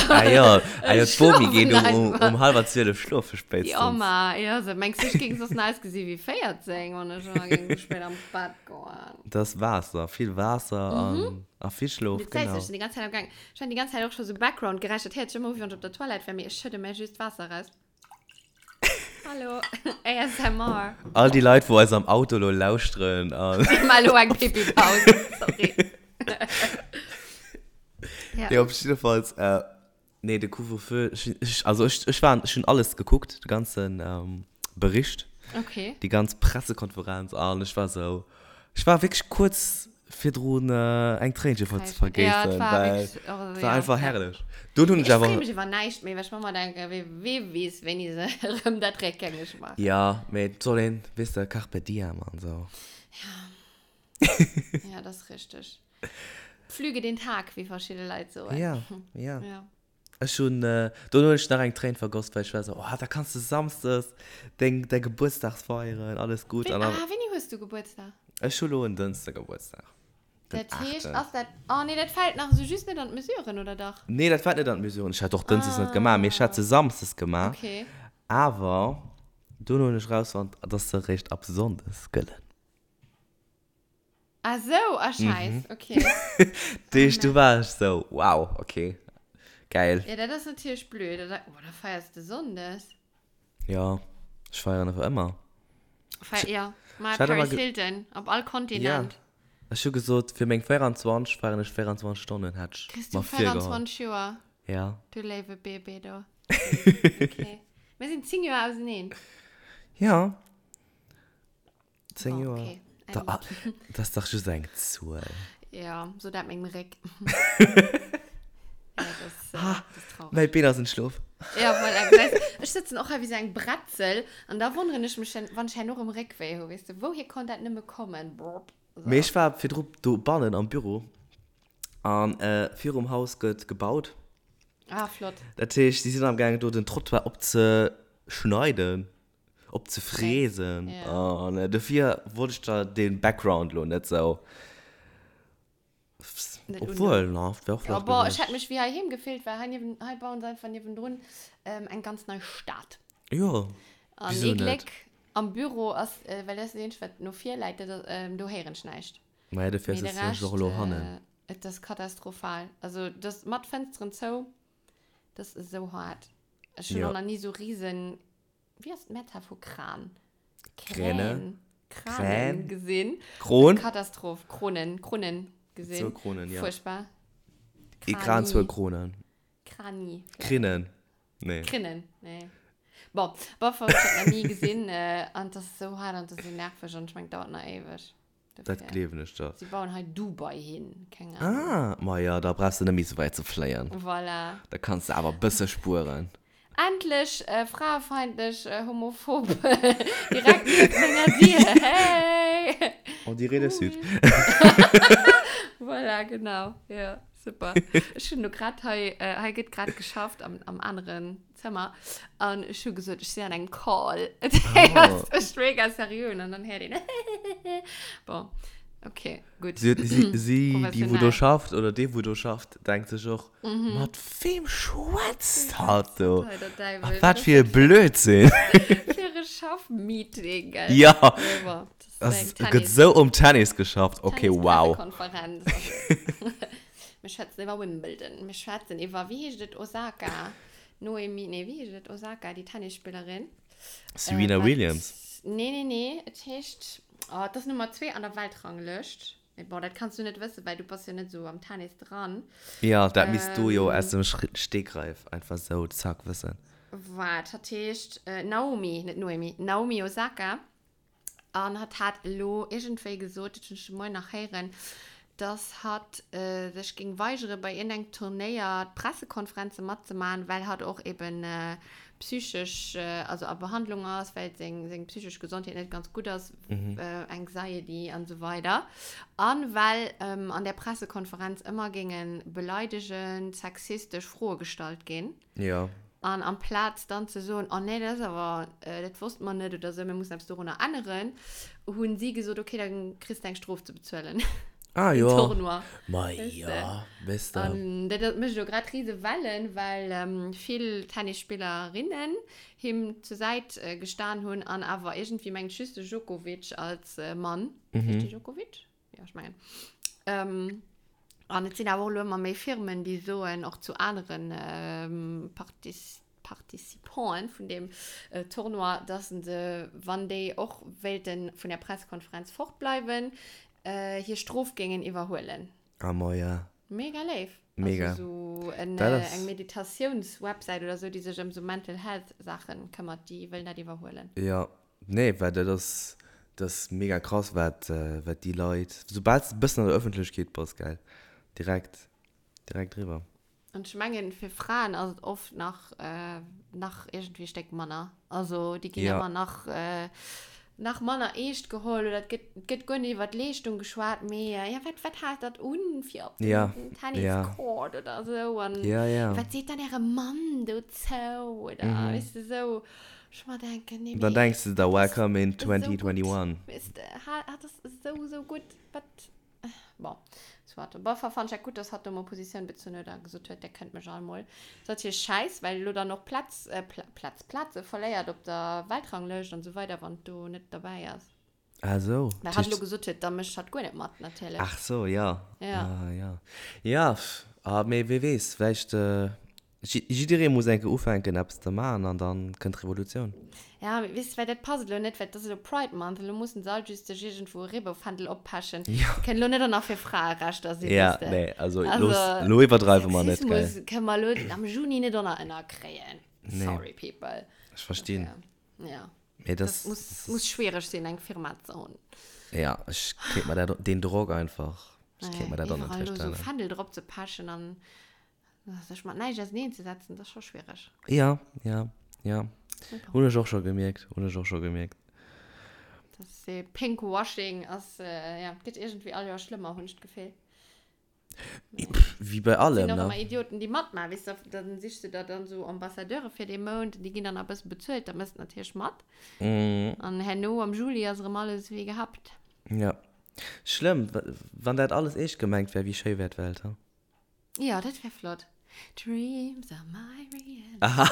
Ah jo, ah jo, d'Bomi geet um, um, um halwer 12 schlofe spéitstens. Jo, ma, jo, so, mengs du, ech géing soss nach ausgesi wéi 14, wann ech ëmmer géing sou spéit am Bett goen? Dat ass Waasser, vill Waasser an, a vill Schlof, Du gesäis, genau. ech sinn déi ganz Zäit am Gaang. Ech hunn déi ganz Zäit och scho sou Background-Geräischer. Dat héiert sech ëmmer u, wéi wann ech op der Toilette wär, mee ech schëdde mär just Waasser eraus. Hallo, ASMR. All déi Leit, wou eis am Auto lo lauschteren an. Déi maachen elo eng Pipi-Paus, sorry. Ja. Nee, op jiddefalls, äh, nee, de Couvre-feu, ech, ech, also ech, ech war, ech hunn alles gekuckt, de ganzen ähm, Bericht. Okay. Déi ganz Pressekonferenz an ech war sou, ech war wierklech kuerz virdrun eng Tréinche ze vergéissen, well et war einfach herrlech. Dunn hunn ech awer. Ech freeë mech iwwer näischt méi, well ech mer ëmmer denken, wee, wee weess, wéini se erëm dat réckgängeg maachen. Jo, mee et soll een, weess de, Carpe diem an esou. Ja. Ja, dat ass richteg. Pflüge den Tag, wéi verschidde Leit soen. Ja, ja. Ja. Ech hunn, dono hunn ech nach eng Tréin vergoss, well ech war esou, oh, da kanns de samsdes deng, däi Gebuertsdag feieren, alles gutt. Wéi, ah, wéini hues du Gebuertsdag? Ech hu lo en Dënschde Gebuertsdag, den Dat heescht, aachten. ass dat, oh nee, dat fält nach esou just net an d'Mesuren, oder dach? Nee, dat fält net an d'Mesuren. Ech hätt och dënschdes net gemaach, mee ech hätt se samsdes gemaach. Okay. Awer dono hunn ech erausfonnt, dass se eréischt ab sonndes gëllen. Ah sou, ah scheiss, okay. Deeg du war ech sou, wow, okay, geil. Ja, dat ass natierlech blöd. Da, oh, da feiers de Sonndes. Ja, ech feieren awer ëmmer. Feier, ja, mal Paris Hilton, op all Kontinent. Ja, ech hu gesot, fir meng 24 feieren ech 24 Stonnen, hat ech Kriss du mer virgeholl. 24 Joer? Ja. Du léiwe Bébé do. Okay. Mir sinn 10 Joer auseneen. Ja. 10 Bon, Joer. okay. Da, ah, das ass dach just eng Zuel. Ja, so dat mengem Réck. ja, das, äh, Ah, das ist traurig. Mäi Been ass entschlof. Ja, voilà, gesäis, ech sëtzen och hei wéi sou eng Bretzel an da wonneren ech mech, wann ech herno erëm Réckwéi hu, weess de, wouhier konnt dat nëmme kommen? Brrp, so. Mee ech war virdru dobannen am Büro an äh, virum Haus gëtt gebaut. Ah, flott. Dat heescht, si sinn am gaangen do den Trottoir opzeschneiden. Op ze fräsen. Ja. An dofir wollt ech der den Background lo net sou. Net Obwohl, na, wär och Ja, flott boah, ech gewiescht. hätt mech wéi heiheem gefillt, well hei niewen, hei bauen se einfach niewendrun ähm, eng ganz nei Stad. Jo, An wieso ee net? Gléck am Büro ass, äh, well dat ass dat eenzegt, wat no vir läit, dat ass, ähm, do héieren ech näischt. Maja, dofir Mee de sëtzen ech Rescht, och elo hannen. äh, et ass katastrophal. Also, dat mat Fënsteren zou, dat ass esou haart. Ech hunn Jo. och nach ni sou riesen Wéi ass d'Mehrzahl vu Kran? Kräne. Kränen. Kränen gesinn. Kron. Katastroph. Kronen. Kronen gesinn. Zwou Kronen, ja. Furchtbar. Ee Kran, zwou Kronen. Krani. Krinnen. Nee. Krinnen, nee. Bon, bof, ech hat nach ni gesinn. An et ass esou haart an et ass esou nerveg an ech mengen, et dauert nach éiweg. Dat gleewen ech der. Si bauen hei Dubai hin, keng Ahnung. Ah, ma jo, da brauchs de net méi sou wäit ze fléien. Voilà. Da kanns de awer e bësse spueren. Endlech fraefeindlech, homophob direkt nieft menger Dier, hey! On dirait le Sud. Voilà, genau, jo, super. Ech hunn elo grad hei, hei gëtt grad geschafft am, am aneren Zëmmer an ech hu gesot, ech sinn an engem Call. Dat ass echt mega seriö an dann héiert een Bon, okay, gutt. Si, si, si, déi wou do Professionell. schafft oder dee wou do schafft, denkt sech och, mat weem schwätzt hatt do? Hei, der A Däiwel. wat fir e Blödsinn! Fir e Schaff-Meeting, gell? Ja. Nee, bon, das Es ist eng gëtt Tennis. sou um Tennis geschafft. Okay, wow. Tennis-Pressekonferenz. Mir schwätzen iwwer Wimbledon, mir schwätzen iwwer, wéi heescht et, Osaka, Noemi, nee, wéi heescht et, Osaka, déi Tennisspillerin. Serena Äh, wat, Williams. Nee, nee, nee, et heescht, oh, et ass Nummer 2 an der Weltranglëscht. Mee bon, dat kanns du net wëssen, well du bass jo net esou am Tennis dran. Ja, dat misst du jo aus Ähm, dem Stegreif einfach sou zack wëssen. Waart, hatt heescht Naomi, net Noemi, Naomi Osaka. An hatt hat elo iergendwéi gesot, dat hunn ech de Moien nach héieren, Dass hatt sech géing weigere bei iergendengem Turnéier d'Pressekonferenze matzemaachen, well hatt och eben psychesch, also a Behandlung ass, well seng, seng psychesch Gesondheet net ganz gutt ass, Anxiety an esou weider. An well an där Pressekonferenz ëmmer géinge beleidegend, sexistesch Froe gestallt ginn. Jo. An amplaz dann ze soen, oh nee, dat ass awer, dat wosste mer net oder esou, mir mussen eppes dorunner änneren, hunn si gesot, okay, da kriss de eng Strof ze bezuelen. Ah Den jo. Tournoi. Ma Weess jo, de. weess de. An dat mécht elo grad rise Wellen, well vill Tennisspillerinnen him zur Säit gestan hunn an awer iergendwéi mengt just de Djokovic als Mann. Heescht dee Djokovic? Ja, ech mengen. Ähm, an et sinn awer och elo ëmmer méi Firmen, déi soen, och zu aneren ähm, Partis Participanten vun deem äh, Tournoi, dass se, wann déi och wéilte vun der Pressekonferenz fortbleiwen, äh, hir Strof géingen iwwerhuelen. Ah, ma ja. Mega léif. Mega. Also so en, Dat äh, ass. eng Meditatiounswebsäit oder sou, déi sech ëm sou Mental Health Saachen këmmert, déi wëllen dat iwwerhuelen. Ja, nee, well dat ass, dat ass mega krass, wat, wat déi Leit, soubal s de e bëssen an der Ëffentlechkeet bass, gell, direkt, direkt eriwwer. An ech mengen, fir Fraen ass et oft nach, nach iergendwéi e Stéck manner. Also déi ginn Ja. ëmmer nach, nach manner eescht geholl oder et gëtt, et gëtt guer net iwwer d'Leeschtung geschwat, mee ja, wat, wat haalt dat un fir op den Ja, ja. Tenniscourt oder esou an Ja, ja. wat seet dann äre Mann dozou oder Mhm. weess de esou. Ech mer denken, nee, Dann mee denks de der, dat ass welcome in esou gutt, 2021. weess de, hat ass esou, esou gutt, wat. Bon, soit. Op alle Fall fand ech dat gutt, dass hatt do mol Positioun bezunn huet a gesot huet, Der kënnt mech all mol. Ass natierlech schäiss, well elo dann och Plätz, äh, Plätz, Plaze verléiert op der Weltranglëscht an esou weider, wann et do net derbäi ass. Ah sou. Well hatt elo gesot huet, da mécht hatt guer net mat, natierlech. Ach sou, ja. Ja. Ah, ja. Ja, ah, mee wee weess, vläicht, Jidderee muss eng Kéier ufänken eppes ze maachen an dann kënnt d'Revolutioun. Ja, mee weess de, well dat passt elo net, well et ass elo Pride Month, elo mussen se all just sech iergendwou e Reebouffändel oppechen. Ja. Se kënnen elo net och nach fir Fraerechter sinn, Ja, weess de. nee, also Also, looss, elo iwwerdreiwe mer net, gell. Sexismus kënne mer elo am Juni net och nach ënnerkréien. Nee. Sorry, people. Ech verstinn. Ja. Mee Das das, muss, muss schwierig sinn, eng Firma ze hunn. Ja, ech kéint mer dat, deen Drock einfach, ech kéint mer dat och net Iwwerall elo sou virstellen. Fändel drop ze pechen an Sech mat näischt auseneen ze setzen, dat ass scho schwiereg. Ja, ja, ja. Hunn ech och scho gemierkt, hunn ech och scho gemierkt. Dat ass ee Pinkwashing ass, ja, gëtt iergendwéi all Joer schlëmmer, hunn ech d'Gefill. Wéi bei allem, ne? Et sinn och ëmmer Idioten, déi matmaachen, weess de, da sichs de der dann esou Ambassadeure fir dee Mount, déi ginn dann nach e bësse bezuelt, da méchs de natierlech mat. An herno am Juli ass erëm alles wéi gehabt. Ja. Schlëmm, wann dat alles eescht gemengt wär, wéi schéi wär d'Welt, he? Ja, dat wär flott. Dreams are my reality. Aha.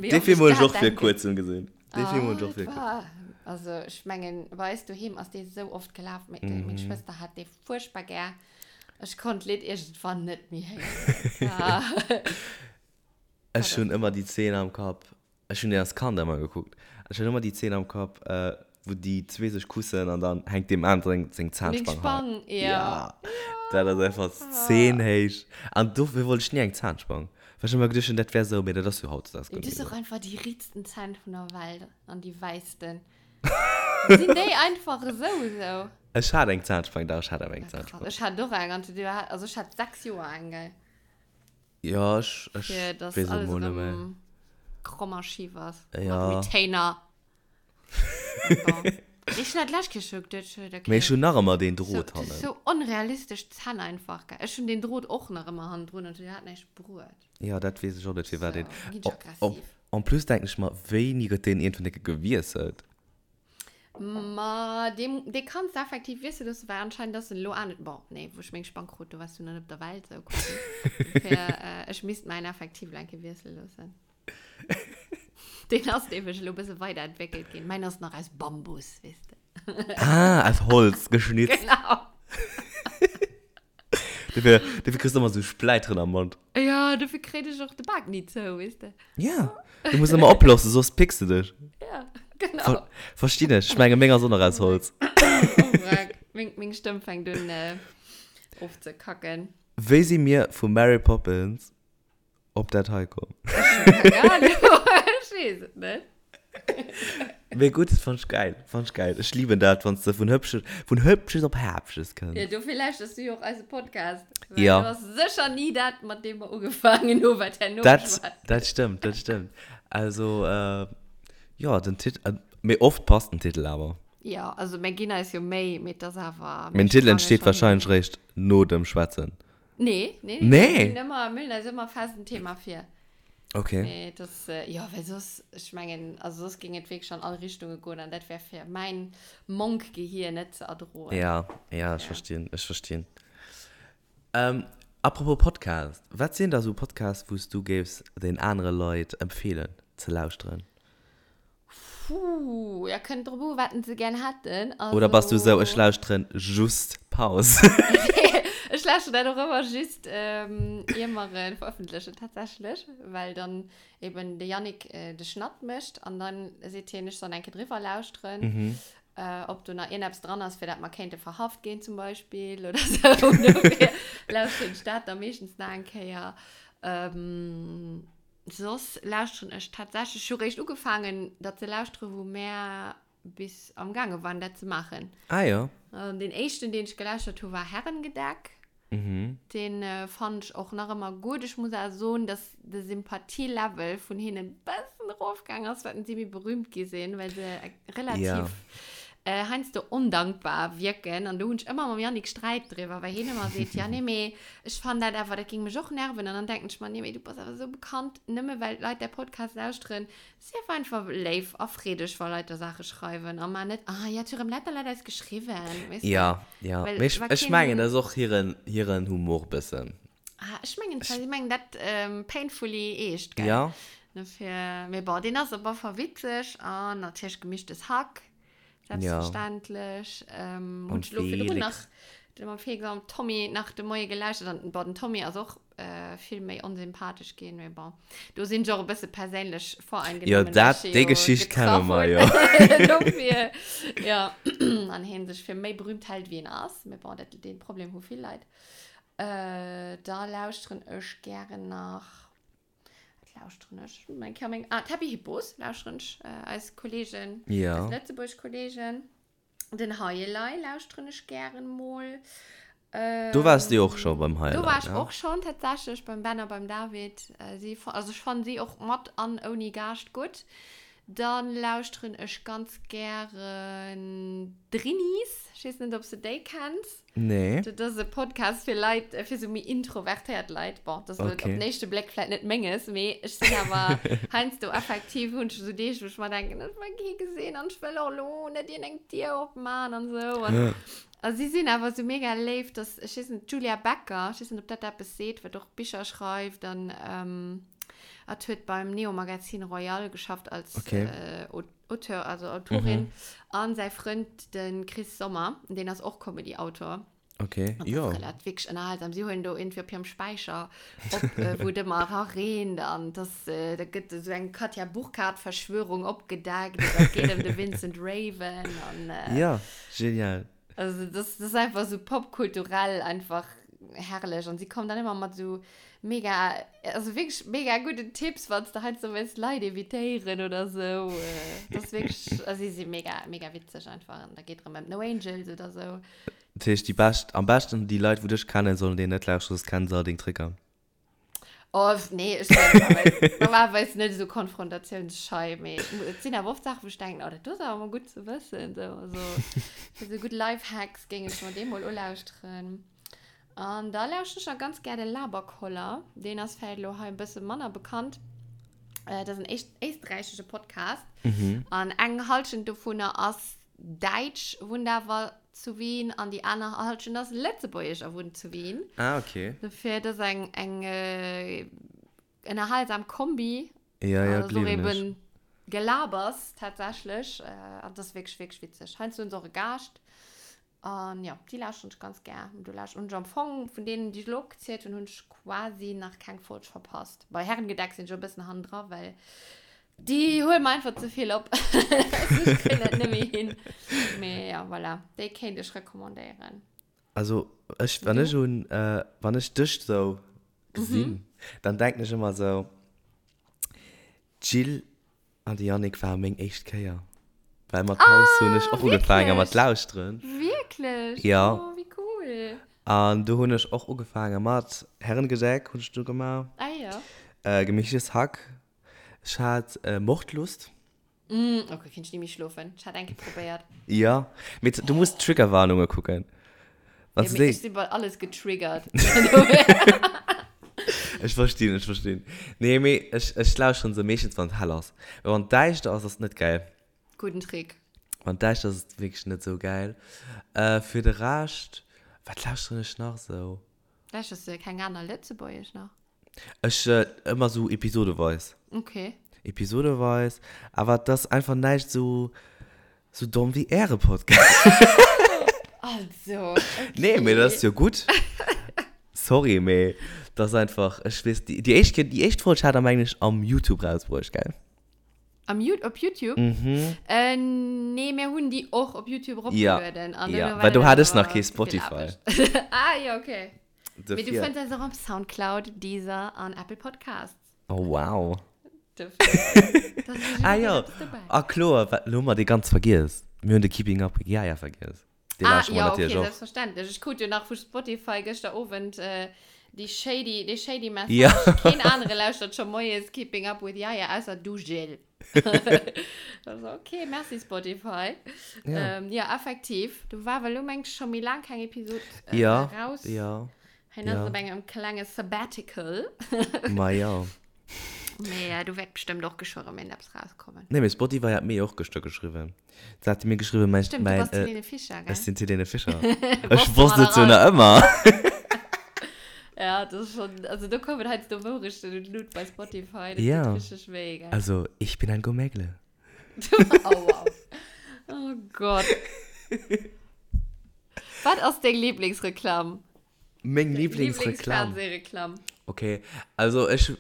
Wéi Dee oft Film ech hunn ech dat och vir denken. kuerzem gesinn. Dee Film hunn ech och vir kuerzem. Ah, also ech mengen, bei eis doheem ass dee sou oft gelaf. Meng meng Schwëster hat dee fuerchtbar gär. Ech konnt d'Lidd iergendwann net méi héieren. Ah. Ech hunn ëmmer déi Zeen am Kapp. Ech hunn deen als Kand ëmmer gekuckt. Ech hunn ëmmer déi Zeen am Kapp, wou déi zwee sech kussen an dann hänkt deem aneren seng Zahnspang hei. Spang, ja. Ja. Dat ass einfach d'Zeen héich. An dofir wollt ech ni eng Zahnspang. Well ech ëmmer geduecht hunn, dat wär esou, mee dat ass jo hautdesdaags guer Du net hues méi och esou. einfach déi riitsten Zänn vun der Welt an déi wäissten. Sinn déi einfach esou esou? Ech hat eng Zahnspang, dach, ech hat awer eng Ja, krass. Zahnspang. Ech hat och eng an du hat, also ech hat 6 Joer eng, gell. Ja, ech, ech Fir dass weess et alles mol net méi. erëm kromm a schif ass. Ja. Mat Retainer. Bon. Ech hunn dat d'lescht Kéier scho geduet, ech huet, okay. Mee ech hunn nach ëmmer deen So, Drot das ist hannen. so onrealistesch Zänn einfach, gell. Ech hunn deen Drot och nach ëmmer hannendrun an du hat näischt bruet. Ja, dat weess ech och net, firwat So, een. ginn ech aggressiv. En plus denken ech mer, wéini gëtt deen iergendwann eng Kéier gewiesselt? Ma dee, dee kanns de effektiv wiessele loossen, well anscheinend ass en elo anescht. Bon, nee, wou ech meng Spang krut, do waars du nach net op der Welt, sou quasi. Dofir, äh, ech misst mäin effektiv elo eng Kéier wiessele loossen. Deen ass nämlech elo e bësse weiderentwéckelt ginn. Mäin ass nach aus Bambus, weess de. Ah, aus Holz geschnitzt. Genau. Dofir, dofir kriss du ëmmer sou Spläiteren am Mond. Ja, dofir kréit ech och de Bak ni zou, weess de. Ja, du muss ëmmer oplossen, soss picks de dech. Ja, genau. Ver verstinn ech. Ech menge meng ass och nach aus Holz. Oh, wrack. Meng, meng Stëmm fänkt un äh, ofzekacken. Wéi si mir vu Mary Poppins op dat hei komm? Ech hunn keng Ahnung. Ech weess et net. Mee gutt, fand ech geil, fand ech geil. Ech lieben dat, wann s de vun Hübsches, vun Hübsches op Häbsches kënns. Ja, dofir lauschterst du jo och eise Podcast. Well ja. Du ass sécher ni dat, mat deem mer ugefaangen hu, wat herno dat, dat stëmmt, dat stëmmt. Also, äh, jo, den Titel, äh, mee oft passt den Titel awer. Ja, also mir ginn eis jo Méi, mee et ass awer. Mee den Titel entsteet wahrscheinlech réischt no dem Schwätzen. Nee, nee, nee. Nee? Mir hunn ëmmer, mir hunn eis ëmmer fest en Thema vir. Okay. Mee das, äh, jo, well soss, ech mengen, also soss géing et wierklech an all Richtunge goen an dat wär fir mäin Monk-Gehir net ze erdroen. Ja, ja, ech ja. verstinn, ech verstinn. Ähm, apropos Podcast, wat sinn da sou Podcasts, wou s du géifs den anere Leit empfeelen ze lauschteren? Puh, ja, kënnt drop u, wat se gern hätten. Also... Oder bass du sou, ech lauschteren just Paus? Ech lauschteren dat och ëmmer just, ähm, ier mer en verëffentlechen, tatsächlech. Well dann eben de Yannick äh, de Schnatt mécht an dann seet hien, ech soll eng Kéier driwwer lauschteren, mhm. äh, ob do nach ierneppes dran ass, fir dat mer kéinte verhaft ginn zum Beispill oder sou. Dofir lauschteren ech dat da meeschtens nach eng Kéier. Ähm, Soss lauschteren ech tatsächlech, ech hu réischt ugefaangen dat ze lauschteren, wou mär bis am gaange waren dat ze maachen. Ah jo. An deen éischten deen ech gelauschtert hu war Herrengedeck. Mhm. Deen fannen ech och nach ëmmer gutt. Ech muss awer soen, dass de Sympathielevel vun hinnen bëssen erofgaang ass, wat si méi berühmt gi sinn, well se relativ Ja. heiansdo ondankbar wierken. An do hunn ech ëmmer mam Yannick Sträit driwwer, well hien ëmmer seet, ja nee, mee ech fannen dat awer, dat géing mech och nerven. An dann denken ech mer, nee, mee du bass awer esou bekannt, nëmme well d'Leit däi Podcast lauschteren, sief einfach léif a freedeg, wa Leit der Saache schreiwen a mar net, ah ja, et hu rëm lauter Leit eis geschriwwen, weess de? Ja, ja. Well Mee ech, wa ech mengen, keen. dat ass och hiren, hiren Humor bëssen. Ah, ech mengen, si mengen dat painfully eescht, gell? Ja. Dofir, mee bon, deen ass op alle Fall witzeg an natierlech Gemischtes Hack. Selbstverständlech. Ja. Ähm, hun ech lo virdrun nach de mam Felix am Tommy nach de Moie gelauschtert an bon, den Tommy ass och äh, vill méi onsympathesch ginn, mee bon. Do sinn ech och e bësse perséinlech voreingenommen. Ja, dat, déi Geschicht kenne mer jo. Dofir, ja, an hien sech fir méi berühmt hält, wéi en ass. Mee bon, dat, dee Problem hu vill Leit. Äh, da lauschteren ech gären nach. Wat lauschteren ech? Mein Coming. Ah, d'Happy Hippos lauschteren ech. Äh, eis Kollegen. Ja. Eis Lëtzebuerg Kollegen. Den Haielei lauschteren ech gären mol. Ähm, do wars du och scho beim Haielei. Do war ech och schon tatsächlech beim Ben a beim David. Äh, si, also ech fannen si och mat an ouni Gaascht gutt. Dann lauschteren ech ganz gären d'Drinis. Ech weess net, ob s de déi kenns. Nee. Dat ass e Podcast fir Leit, fir sou méi introvertéiert Leit. Bon, dat ass elo Okay. op den éischte Bléck vläit net menges, mee ech sinn awer heiansdo effektiv, hunn ech sou Deeg, wou ech mer denken, ech wëll kee gesinn an ech wëll och elo net iergendeng Dier opman an sou. An, a si sinn awer sou mega léif, dass, ech weess net, d'Julia Becker, ech weess net, ob dat eppes seet, wat och Bicher schreift an hat huet beim Neo Magazin Royal geschafft als Okay. Auteur, also Autorin, mhm. an säi Frënd, den Chris Sommer, deen ass och Comedy-Autor. Okay, Und jo. Das ist wirklich ënnerhalsam. Sie huelen do irgendwie op hirem Späicher op, äh, wou et ëmmer erareent an das, äh, da gëtt esou eng Katja Burkhardt-Verschwörung opgedeckt oder et geet ëm de Vincent Raven an, äh, Ja, genial. Also das, das ist einfach so popkulturell einfach herrlich. Und sie kommen dann immer mit so mega, also wirklich mega guten Tipps, wann du halt so willst Leute evitéieren oder so. Das ist wirklich, also sie sind mega, mega witzig einfach. Und da geht drum um No Angels oder so. Dat heescht, déi bescht, am beschten déi Leit, wou dech kennen, sollen deen net lauschteren, soss kennen se all deng Tricker. Oh, nee, ech sinn normalerweis, normalerweis net esou konfrontatiounsschei, mee et sinn awer oft Saachen, wou ech denken, oh, dat do ass awer mol gutt ze wëssen. So, also, fir esou gutt Lifehacks géing ech mer dee mol ulauschteren. An da lauschteren ech nach ganz gär de Laberkoller. Deen ass vläicht elo hei e bësse manner bekannt. Äh, dat ass en éischt, éisträichesche Podcast. Mhm. An eng Hallschent dovunner ass Däitsch, wunnt awer zu Wien an déi aner Halschent ass Lëtzebuergesch a wunnt zu Wien. Ah, okay. Dofir, dat ass eng, eng äh, ënnerhalsam Kombi. Ja, ja, Also och gleewen ech. eben Gelabers tatsächlech. Äh, an dat ass wierklech, wierklech witzeg. Heiansdo hunn se och e Gaascht. An ja, déi lauschteren ech ganz gär. Do lauscht hunn ech am Fong vun deenen, déi ech elo opgezielt hunn, hunn ech quasi nach keng Folg verpasst. Bei Herrengedeck sinn ech e bëssen hannendra, well Déi huelen mer einfach ze vill op. Ech kréien dat net méi hin. Mee ja, voilà. Déi kéint ech recommandéieren. Also ech, wann ech un, wann ech dech sou gesinn, dann denken ech ëmmer sou, d'Jill an de Yannick ware meng éischt Kéier. Well mat Paus hunn ech och ugefaange mat lauschteren. Wierklech? Ja. Oh, wéi cool. An do hunn ech och ugefaange mat Herrengedeck hunn ech do gemaach. Ah jo. Gemischtes Hack. Ech hat Mordlust. Mm, okay, kinnt ech ni méi schlofen. Ech hat eng Kéier probéiert. Ja, mee du muss Triggerwarnunge kucken. Wann ja, du ech sinn bei alles getriggert. Ech verstinn, ech verstinn. Nee, mee ech, ech lauschteren se meeschtens, wann et hell ass. Well wann et däischter ass, ass et net gäil. Gudden Trick. Wann et däischter ass, ass et wierklech net sou gäil. Äh, fir de Rescht, wat lauschteren ech nach sou? Lauschters du keng aner Lëtzebuergesch nach? Ech, ëmmer sou episodeweis. Okay. Episodeweis, awer et ass einfach näischt sou, sou domm wéi äre Podcast. Also, okay. Nee, mee dat ass jo gutt. Sorry, mee dat ass einfach, ech weess, déi, déi éischt Kéier, déi éischt Folg hat der, mengen ech, am Youtube rausbruecht, gell? Am You op Youtube? Mhm. Äh, nee, mir hunn déi och op Youtube Ja, eropgelueden. An ja, duerno war well do dat hat ech nach awer kee ze vill Spotify. Aarbecht. Ah, ja, okay. Mee du Dofir. fënns eis och op Soundcloud, Deezer an Apple Podcasts. Oh, wow. Dofir, da ass fir Ah jiddereen jo, eppes dobäi. ah kloer, wat, lo hu mer dee ganz vergiess. Mir hunn de Keeping Up with Yaya vergiess. Dee Ah, lauschteren mer ja, okay, natierlech och. selbstverständlech. Ech krut jo nach vu Spotify gëschter Owend äh, déi shady, dee shady Message. Ja. Keen anere lauschtert scho moies Keeping Up with Yaya, ausser du, Jill. Also, okay, merci Spotify. Ja. Ähm, ja, effektiv. Du war well lo meng scho méi laang keng Episod äh, Ja, raus. ja. Hien ass Ja. op engem klenge Sabbatical. Ma ja. Mee äh, du wäert bestimmt och geschwë rëm een eppes rauskommen. Nee, mee Spotify hat mir jo och gëschter geschriwwen. Se hat mir geschriwwen, mein, Stimmt, du mein, bass äh, d'Helene Fischer, gell? ech sinn d'Helene Fischer. Ech Wosste wosst mer et nach jo nach all. ëmmer. Ja, das ist schon, also do kommen heiansdo Wourechten un d'Lut bei Spotify, das Ja. tut richtig weh, gell? Also, ich bin ein Gomegle. oh, wow. Oh Gott. Was ass deng Lieblingsreklam? Meng Lieblingsreklam? Lieblingsfernsehreklam. Okay, also ech,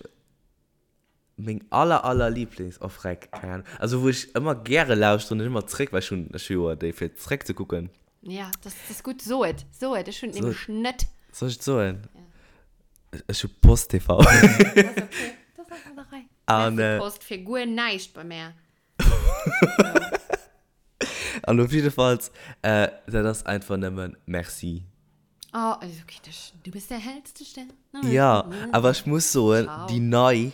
meng aller, aller Lieblings, oh freck, keng Ahnung. Also wou ech ëmmer gäre lauschteren, ech ëmmer zréck, well ech hunn, ech hu jo déi fir zréck ze kucken. Ja, das, das ist gut. So et, so et, ech hunn So nämlech net. Soll ech et soen? Ja. Ech hu Post TV. Das ist okay. Das ass an der Rei. An, Merci äh, Post fir guer näischt bei mär. An op jiddefalls, äh, dat ass einfach nëmmen Merci. Oh, also okay, das, du bist der hellste Stern. Ja, awer ech muss soen, Ciao. déi nei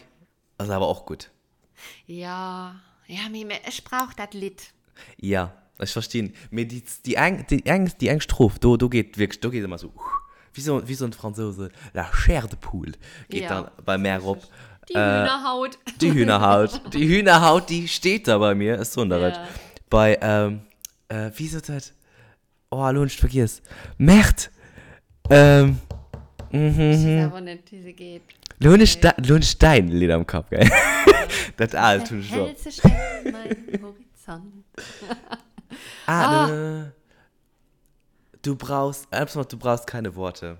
ass awer och gutt. Ja, ja, mee, mee ech brauch dat Lidd. Ja, ech verstinn. Mee déi, déi eng, déi eng, déi eng Stroph, do, do geet wierklech, do geet ëmmer esou, wéi soen, wéi soen d'Fransouse, la chair de poule geet Ja, dann bei mär erop. Déi Hühnerhaut. Déi Hühnerhaut, déi Hühnerhaut, déi steet da bei mir, ech soen der et. Ja. Bei, ähm, äh, wéi sot dat? Oh, elo hunn ech et vergiess. Merde! Ähm, mhm. Ech weess awer net, wéi se geet. Lo hunn ech, lo hunn ech däin Lidd am Kapp, gell? Dat aalt hunn ech lo. Hellste Stern, mein Horizont. Ah, ah. Ne, du brauchst, eppes mat du brauchst keine Worte.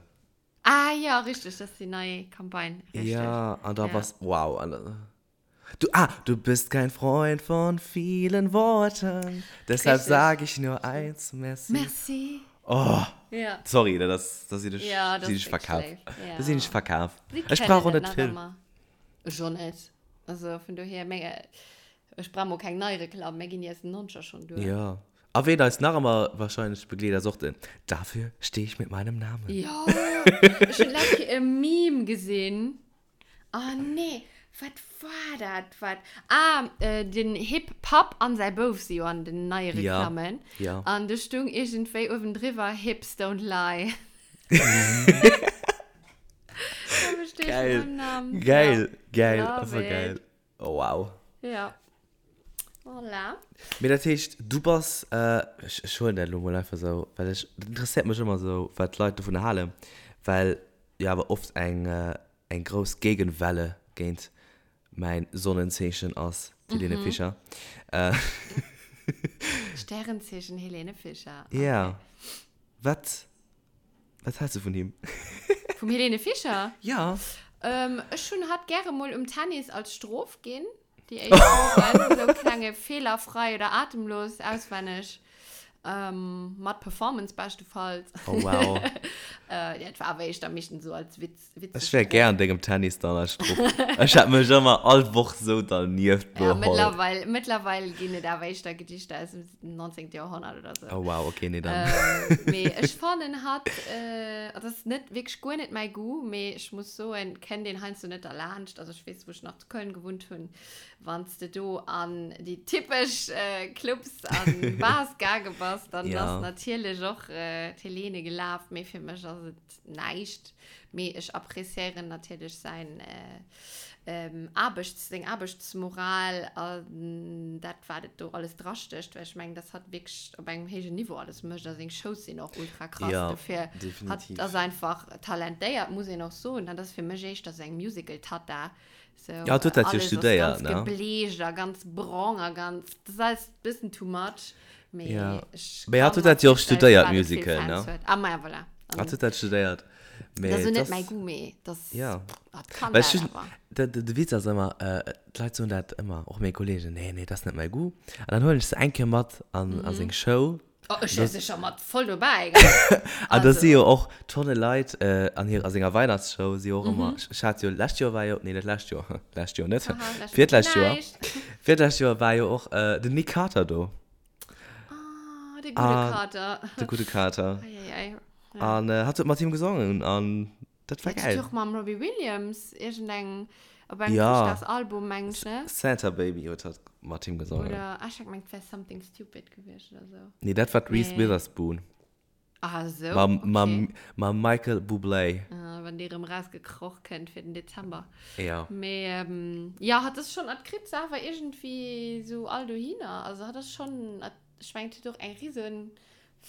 Ah ja, richtig, das ist die neue Kampagne. Richtig. Ja, an da ja. was, wow. An, du, ah, du bist kein Freund von vielen Worten, deshalb sage ich nur eins, merci. Merci. Oh, ja. Sorry, das, das ich, ja, das ich verkauft. Ja. Das ich verkauft. Ich brauche nicht viel. Schon nicht. Also von daher, mega, Ech brauch mol keng nei Reklamm, mär ginn déi aus den Nonzeger schonn duer. Jo. A ween eis nach ëmmer wahrscheinlech begleet ass och den Dafür stehe ich mit meinem Namen. Jo, ech hunn d'lescht Kéier e Meme gesinn. Oh nee, wat war dat? Wat? Ah, den Hip Papp an säi Bouf si jo an den neie Reklammen. Ja, ja. An do stung iergendwéi uewendriwwer Hips don't lie. Dafür stehe ich mit meinem Namen. Geil, geil, Love einfach it. geil. Oh, wow. Ja. Voilà. Mee dat heescht, du bass, ech, ech huelen dat elo mol einfach esou, well ech, dat interesséiert mech ëmmer esou, wat d'Leit dovun halen, well jo awer oft eng, eng grouss Gegenwelle géint mäin Sonnenzeechen ass, d'Helene Fischer. Sternzeechen Helene Fischer. Okay. Ja. Wat, Wat häls du vun him? Vum Helene Fischer? Ja. Ähm, ech hunn hatt gäre mol um Tennis als Strof ginn. Déi éischt Wochen, sou klenge fehlerfrei oder atemlos auswenneg. Ähm, mat Performance beschtefalls. Oh wow. äh, ja, et war awer éischter meeschtens so als Witz. Witzeg Ech wär gär an dengem Tennis dann als Strupp. Ech hätt mech ëmmer all Woch sou dernieft Ja, beholl. mëttlerweil, mëttlerweil ginn et awer éischter Gedichter aus dem 19. Jahrhundert oder so. Oh wow, okay, nee dann. Ähm, mee ech fannen hatt, äh, dat ass net wierklech guer net mäi Goût, mee ech muss soen, kennt een heiansdo net derlaanscht. Also ech weess, wou ech nach zu Köln gewunnt hunn, Wann s de do an déi typesch Clubs an Bars gaange bass, dann Ja. ass natierlech och d'Helene gelaf, mee fir mech ass et näischt. Mee ech appréciéieren natierlech säin Aarbechts, seng Aarbechtsmoral an dat, wat et do alles drastécht, well ech mengen, dass hatt wierklech op engem héijen Niveau alles mécht a seng Shows sinn och ultra krass. Ja, Dofir, hatt definitiv. ass einfach talentéiert, muss een och soen. Hatt ass fir mech éischter sou eng Musical-Tatta, So, Ja, hat huet dat jo alles ass studéiert, ganz ne? gebleecht a ganz brong a ganz, das ist alles e bëssen too much. Mee Ja. ech Mee hat kann huet dat jo och mer virstellen, studéiert, firwat et vill Musical, Fans ne? huet. Ah, ma ja, voilà. Hat An huet dat studéiert. Mee das ist et net ass, mäi Goût, mee das, ja. dat kann Well ech dat hunn, awer. de, de, de Witz ass ëmmer, äh, d'Leit soen dat ëmmer, och meng Kollegen, nee, nee, dat ass net mäi Goût. An dann huelen ech se eng Kéier mat an, a seng Show. Oh, ech wär sécher mat voll dobäi, gell? An da si Also. jo och Tonne Leit an hir, a senger Weihnachtsshow si jo och ëmmer, ech hat jo lescht Joer war jo, nee net lescht Joer, lescht Joer net, Haha, lescht Joer virtlescht Joer, näischt. virtlescht Joer war jo och den Nick Carter do. Ah, de gudde Carter. De gudde Carter. Ei, ei, ei. Ja. An hatt huet mat him gesongen an dat war Huet gäil. och mam Robbie Williams iergendeng, op engem Ja. Chrëschtdagsalbum, mengen ech, ne? Santa Baby huet hatt mat him gesongen. Oder, ah, ech hat gemengt, et wär Something Stupid gewiescht oder sou. Nee, dat war d'Reese Nee. Witherspoon. Ah, sou, Mam, okay. mam, mam Michael Bublé. Ah, wann dee rëm rausgekroch kënnt fir den Dezember. Ja. Mee, ähm, ja, hatt ass schonn, hatt kritt se awer iergendwéi sou all dohinner. Also hatt ass schonn, hatt, ech mengen, huet och eng risen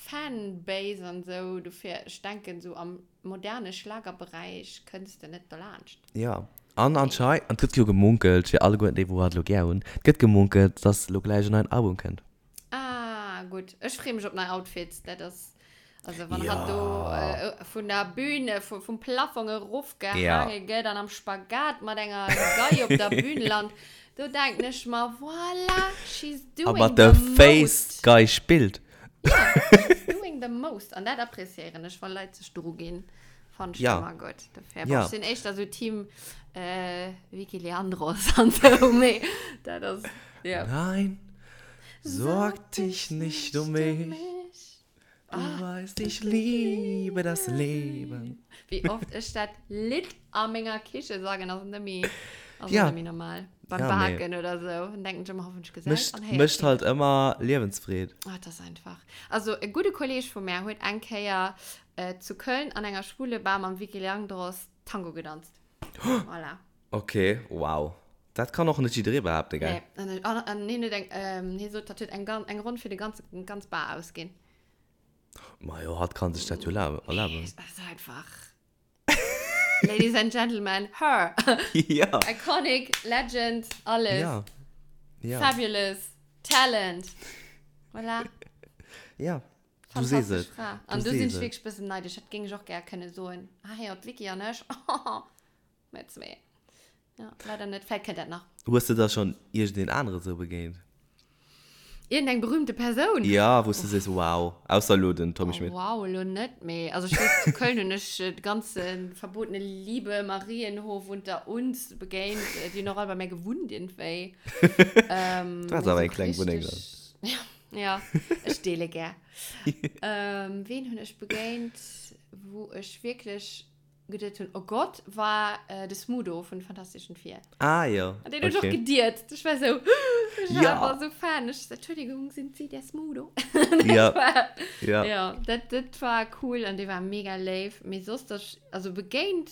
Fanbase an sou, dofir ech denken sou am moderne Schlagerberäich kënns de net dolaanscht. Jo, an anschei, an et gëtt jo gemunkelt, fir alleguerten déi wou hatt elo gär hunn, et gëtt gemunkelt, dass elo gläich en neien Album kënnt. Ah gutt, ech freeë mech op nei Outfits, dat ass, also wann hatt do vun der Bühne, vum Plafong erofgehaange gëtt an am Spagat mat enger Gei op der Bühn lant, do denken ech mer, voilà, she's A doing mat the der Face most. d'Gei spillt. Ja, she's doing the most. An dat appréciéieren ech, wa Leit sech dru ginn. Fand ech Ja. ëmmer gutt. Dofir, Ja. bon, ech sinn éischter sou Team äh, Vicky Leandros an sou, mee dat ass, ja. Nein, sorg dich nicht um mich. Du weißt, ich liebe das Leben. Wéi oft ech dat Lidd a menger Kiche sangen, ass net méi, ass Ja. net méi normal. Beim Ja, mee. Baken oder sou, dann denken ech ëmmer, hoffentlich gesäit Mécht, an héiert mécht keen. halt ëmmer Liewensfreed. Ah, dat ass einfach. Also, e gudde Kolleg vu mär huet eng Kéier äh, zu Köln an enger schwule Bar mam Vicky Leandros Tango gedanzt. Voilà. Okay, wow. Dat kann och net jidderee behaapten, gell? Nee, an, an, an hien huet eng, ähm, hie sot, dat huet eng, eng Ronn fir de ganze, ganz Bar ausginn. Majo, hatt kann sech dat jo erlaben. Nee, ass einfach. Ladies and Gentlemen, her! Ja. Iconic, Legend, alles. Ja. Ja. Fabulous, Talent. Voilà. Ja. Du sees Fantastesch et. Fra. An Du do sinn sees ech et. wierklech bëssen neidesch. Dat géing ech och gär kënne soen. Ah, jo, d'Vicky an ech. Mir zwee. Ja, leider net. Vläicht kënnt dat nach. Hues de da schonn iergendeen anere sou begéint? Iergendeng berühmte Persoun? Ja, wou s de sees, wow. Ausser elo den Tommy Oh, Schmidt. wow, elo net, mee also ech weess, zu Köln hunn ech de ganze Verbotene Liebe, Marienhof unter uns begéint. Déi hunn och all bei mär gewunnt iergendwéi. Ähm, Du has mee awer sou eng kleng Wunneng dann. richteg. Ja, ech deele gär. Ähm, ween hunn ech begéint, wou ech wierklech geduet hunn, oh Gott, war äh, de Smudo vun Fantastischen Vier. Ah, jo. An den hunn ech och Okay. gediert. Ich war so, ich war Ja. einfach so Fan. Ich so, Entschuldigung, sind Sie der Smudo? Ja. Das war, Ja. ja, dat, dat war cool an dee war mega léif. Mee soss, dass, also begéint,